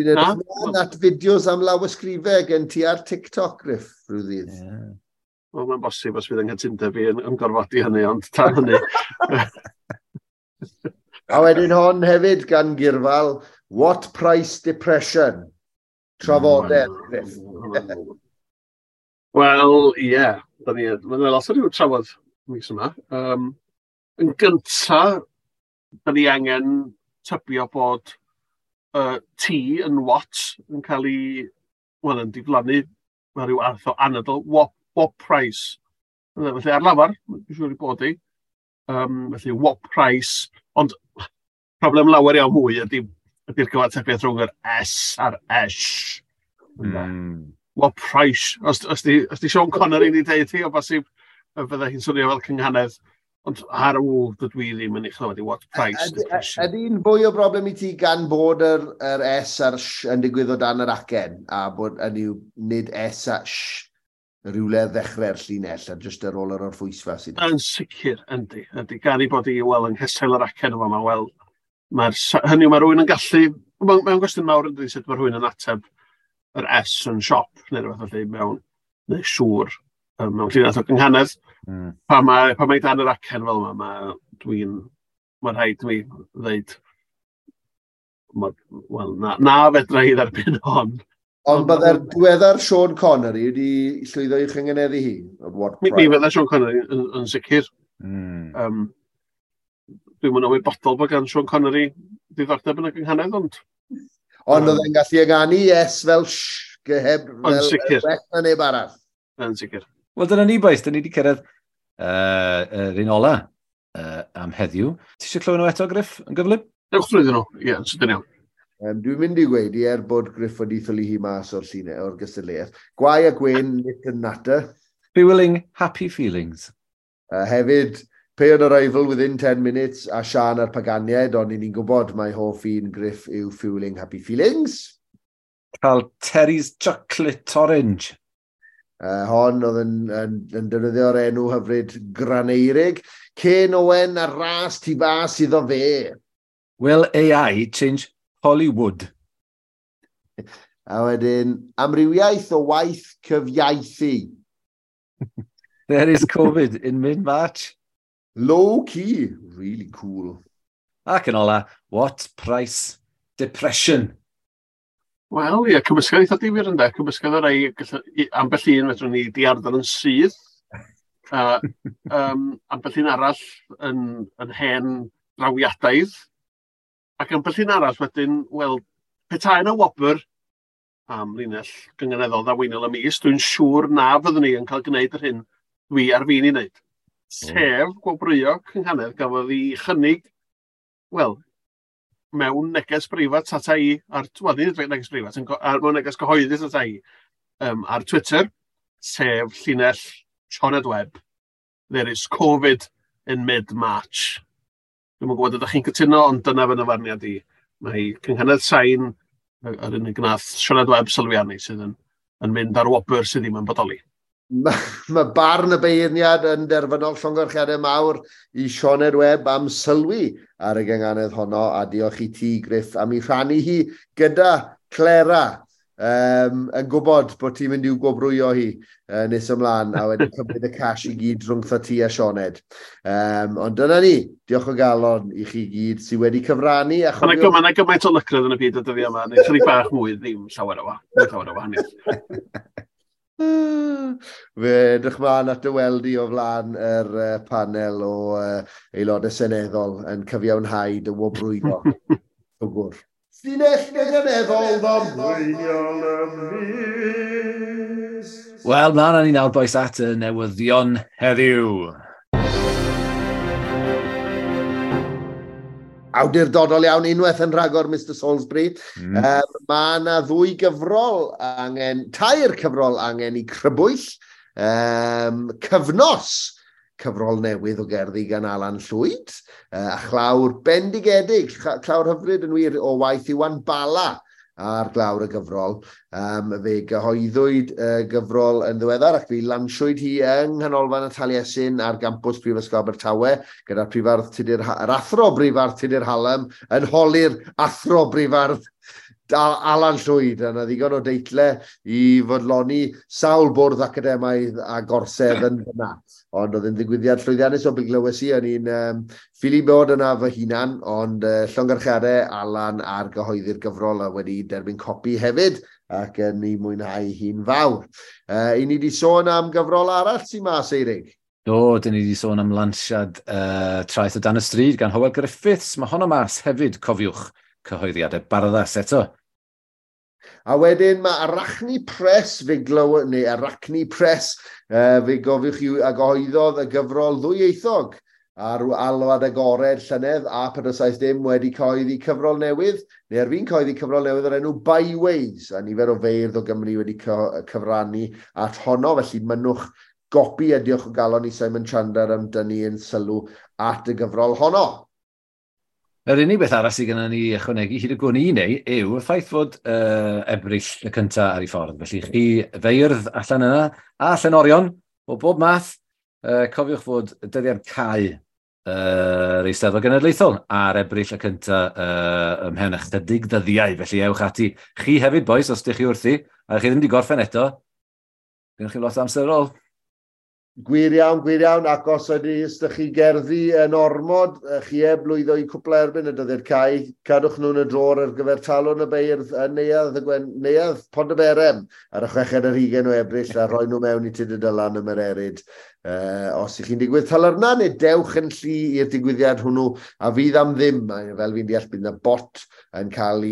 Dwi'n edrych ymlaen at fideos am lawysgrifau gen ti ar TikTok, Griff, rhyw ddydd. Yeah. Wel, mae'n bosib os fydd yng nghytundeb fi yn gorfodi hynny, ond tan hynny. A wedyn hon hefyd gan Gyrfal, What Price Depression? Trafodau, Griff. Wel, ie. Yeah. Mae'n lot o ryw trafod mis yma. Yn gynta, da ni angen tybio bod T yn what yn cael ei, wel, yn diflannu, mae rhyw arth o anadl, what price. Felly ar lafar, dwi'n siŵr i bod i. Felly what price, ond problem lawer iawn mwy ydy'r cyfatebiaeth rhwng yr S a'r S. What price? Os di Sean Connery wedi deud hi, o bosib fydda hi'n swnio fel cynghanedd. Ond ar ôl dydw i ddim yn ei chlywed i what price. Ydy'n fwy o broblem i ti gan bod yr S a'r S yn digwydd o dan yr acen, a bod yn yw nid S a S rhywle ddechrau'r llinell, a jyst ar ôl yr orffwysfa sydd. Yn sicr, yndi. Yndi. Gan i bod i, wel, yng nghesail yr acen yma, wel, hynny yw, mae rhywun yn gallu, mae'n gwestiwn mawr yndi, sut mae rhywun yn ateb yr S yn siop, neu rhywbeth felly, mewn, neu siŵr, mewn llinell o gynghanedd. Pa mae dan yr acen fel yma, mae rhaid mi ddeud, wel, na fedra i dderbyn hon. Ond byddai'r diweddar Sean Connery wedi llwyddo i'w chyngeneddu hi? Mi fydda Sean Connery yn sicr. Dwi'm yn ymwybodol bod gan Sean Connery ddiddordeb yn y gynghanedd, ond... Ond oedd e'n gallu ynganu S fel sh, heb fel well na neb arall. Yn sicr. Wel, dyna ni, boys. Dyna ni wedi cyrraedd yr un ola am heddiw. Ti eisiau clywed nhw eto, Griff, yn gyflym? Ewch drwyddyn nhw, ie, yn sydyn iawn. Dwi'n mynd i gweud i er bod Griff wedi ffylu hi mas o'r llinell, o'r gystadleuaeth. Gwae a gwyn, nit and natter. Fueling happy feelings. Hefyd, Pay on arrival within 10 minutes a Sian a'r Paganiaid, ond ni'n gwybod mai hoff un Griff yw Fueling Happy Feelings. Cael Terry's Chocolate Orange. Hon oedd yn defnyddio'r enw hyfryd Graneirig. Ken Owen a ras tu fas iddo fe. Will AI change Hollywood? A wedyn, amrywiaeth o waith cyfiaethu. There is Covid in mid-March. Low key, really cool. Ac yn ola, what price depression? Wel, ie, cymysgedd eitha difyr ynde. Cymysgedd o rai, ambell un fedrwn ni diarddel yn syth. Ambell un arall yn hen drawiadaidd. Ac ambell un arall wedyn, wel, petai yna wobr am linell gynganeddol ddaweinol y mis, dwi'n siŵr na fyddwn ni yn cael gwneud yr hyn dwi ar fin i wneud. Sef gwobrwyo cynghanedd gafodd ei chynnig, wel, mewn neges breifat ata i, ar, wel, nid neges breifat, mewn neges gyhoeddus ata i, ar Twitter, sef llinell Sioned Webb, There is Covid in mid-March. Dwi'm yn gwybod ydych chi'n cytuno, ond dyna fy nyfarniad i. Mae cynghanedd sain, yr unig gnath Sioned Webb sylwi arni, sydd yn mynd ar wobr sydd ddim yn bodoli. Mae barn y beirniad yn derfynol, llongyfarchiadau mawr i Sioned Webb am sylwi ar y gynghanedd honno, a diolch i ti, Griff, am ei rhannu hi gyda Clera, yn gwybod bod ti'n mynd i'w gwobrwyo hi nes ymlaen, a wedyn cymryd y cash i gyd rhwngtho ti a Sioned. Ond dyna ni, diolch o galon i chi gyd sydd wedi cyfrannu. Mae yna gymaint o lycredd yn y byd y dyddiau yma, neu chydig bach mwy, ddim llawer o wahaniaeth. Fe edrych mlaen at dy weld i o flaen yr panel o aelodau seneddol yn cyfiawnhau dy wobrwyo. Gwr. Llinell gynghaneddol ddamweiniol y mis. Wel, mlaen â ni nawr, bois, at y newyddion heddiw. Awdurdodol iawn, unwaith yn rhagor, Mr Salisbury. Mae yna ddwy gyfrol angen, tair cyfrol angen i crybwyll. Cyfnos, cyfrol newydd o gerddi gan Alan Llwyd, a chlawr bendigedig, clawr hyfryd yn wir o waith Iwan Bala ar glawr y gyfrol. Fe gyhoeddwyd y gyfrol yn ddiweddar ac fe lansiwyd hi yng Nghanolfan y Taliesin ar gampws Prifysgol Abertawe gyda'r prifardd Tudur, yr athro brifardd Tudur Hallam yn holi'r athro brifardd Alan Llwyd, a 'na ddigon o deitle i fodloni sawl bwrdd academaidd a gorsedd yn fyna. Ond oedd yn ddigwyddiad llwyddiannus o be glywes i, o'n i'n ffili bod yna fy hunan, ond llongyfarchiadau Alan ar gyhoeddi'r gyfrol a wedi derbyn copi hefyd, ac yn ei mwynhau hi'n fawr. I ni wedi sôn am gyfrol arall sy'n mas, Eirig? Do, dyn ni wedi sôn am lansiad Traeth o Dan y Stryd gan Hywel Griffiths. Mae honno mas hefyd, cofiwch, cyhoeddiadau Barddas eto. A wedyn mae Arachne Press, fe glyw, neu Arachne Press, fe gofiwch chi a gyhoeddodd y gyfrol ddwyieithog ar alwad agored llynedd a 470 wedi cyhoeddi cyfrol newydd, neu ar fin cyhoeddi cyfrol newydd o'r enw Byways, a nifer o feirdd o Gymru wedi cyfrannu at honno, felly mynnwch gopi a diolch o galon i Simon Chandler am dynnu yn sylw at y gyfrol honno. Yr unig beth arall sydd gennym ni ychwanegu hyd y gwn i neu yw y ffaith fod Ebrill y cyntaf ar ei ffordd. Felly chi feirdd allan yna a llenorion o bob math, cofiwch fod dyddiad cau yr Eisteddfod Genedlaethol ar Ebrill y cyntaf ymhen ychydig ddyddiau. Felly ewch ati. Chi hefyd, bois, os ydych chi wrthi, a chi ddim wedi gorffen eto, gennych chi lot o amser ar ôl. Gwir iawn, gwir iawn, ac os ydych chi gerddi yn ormod, chi heb lwyddo i cwpla erbyn y dyddiad cau, cadwch nhw'n y drôr ar gyfer Talwrn y Beirdd yn Neuadd, y Gwen, Neuadd Pontyberem ar y 26 o Ebrill a rhoi nhw mewn i Tudur Dylan ym Mererid. Os ych chi'n digwydd talyrna, neu dewch yn llu i'r digwyddiad hwnnw, a fydd am ddim, fel fi'n deall, bydd yna bot yn cael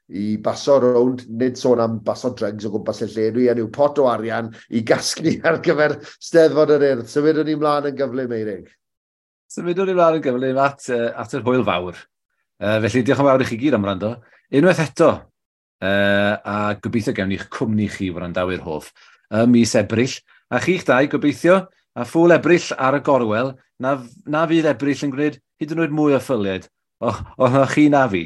ei baso rownd, nid sôn am baso drugs o gwmpas y lle, dwi yn yw pot o arian i gasglu ar gyfer Steddfod yr Urdd. Symudwn ni mlaen yn gyflym, Eirig. Symudwn ni mlaen yn gyflym at yr hwyl fawr. Felly diolch yn fawr i chi gyd am wrando. Unwaith eto, a gobeithio gewn ni'ch cwmni chi wrandawyr hoff ym mis Ebrill. A chi'ch dau, gobeithio, a ffŵl Ebrill ar y gorwel, na fydd Ebrill yn gwneud hyd yn oed mwy o ffyliad. O, chi na fi.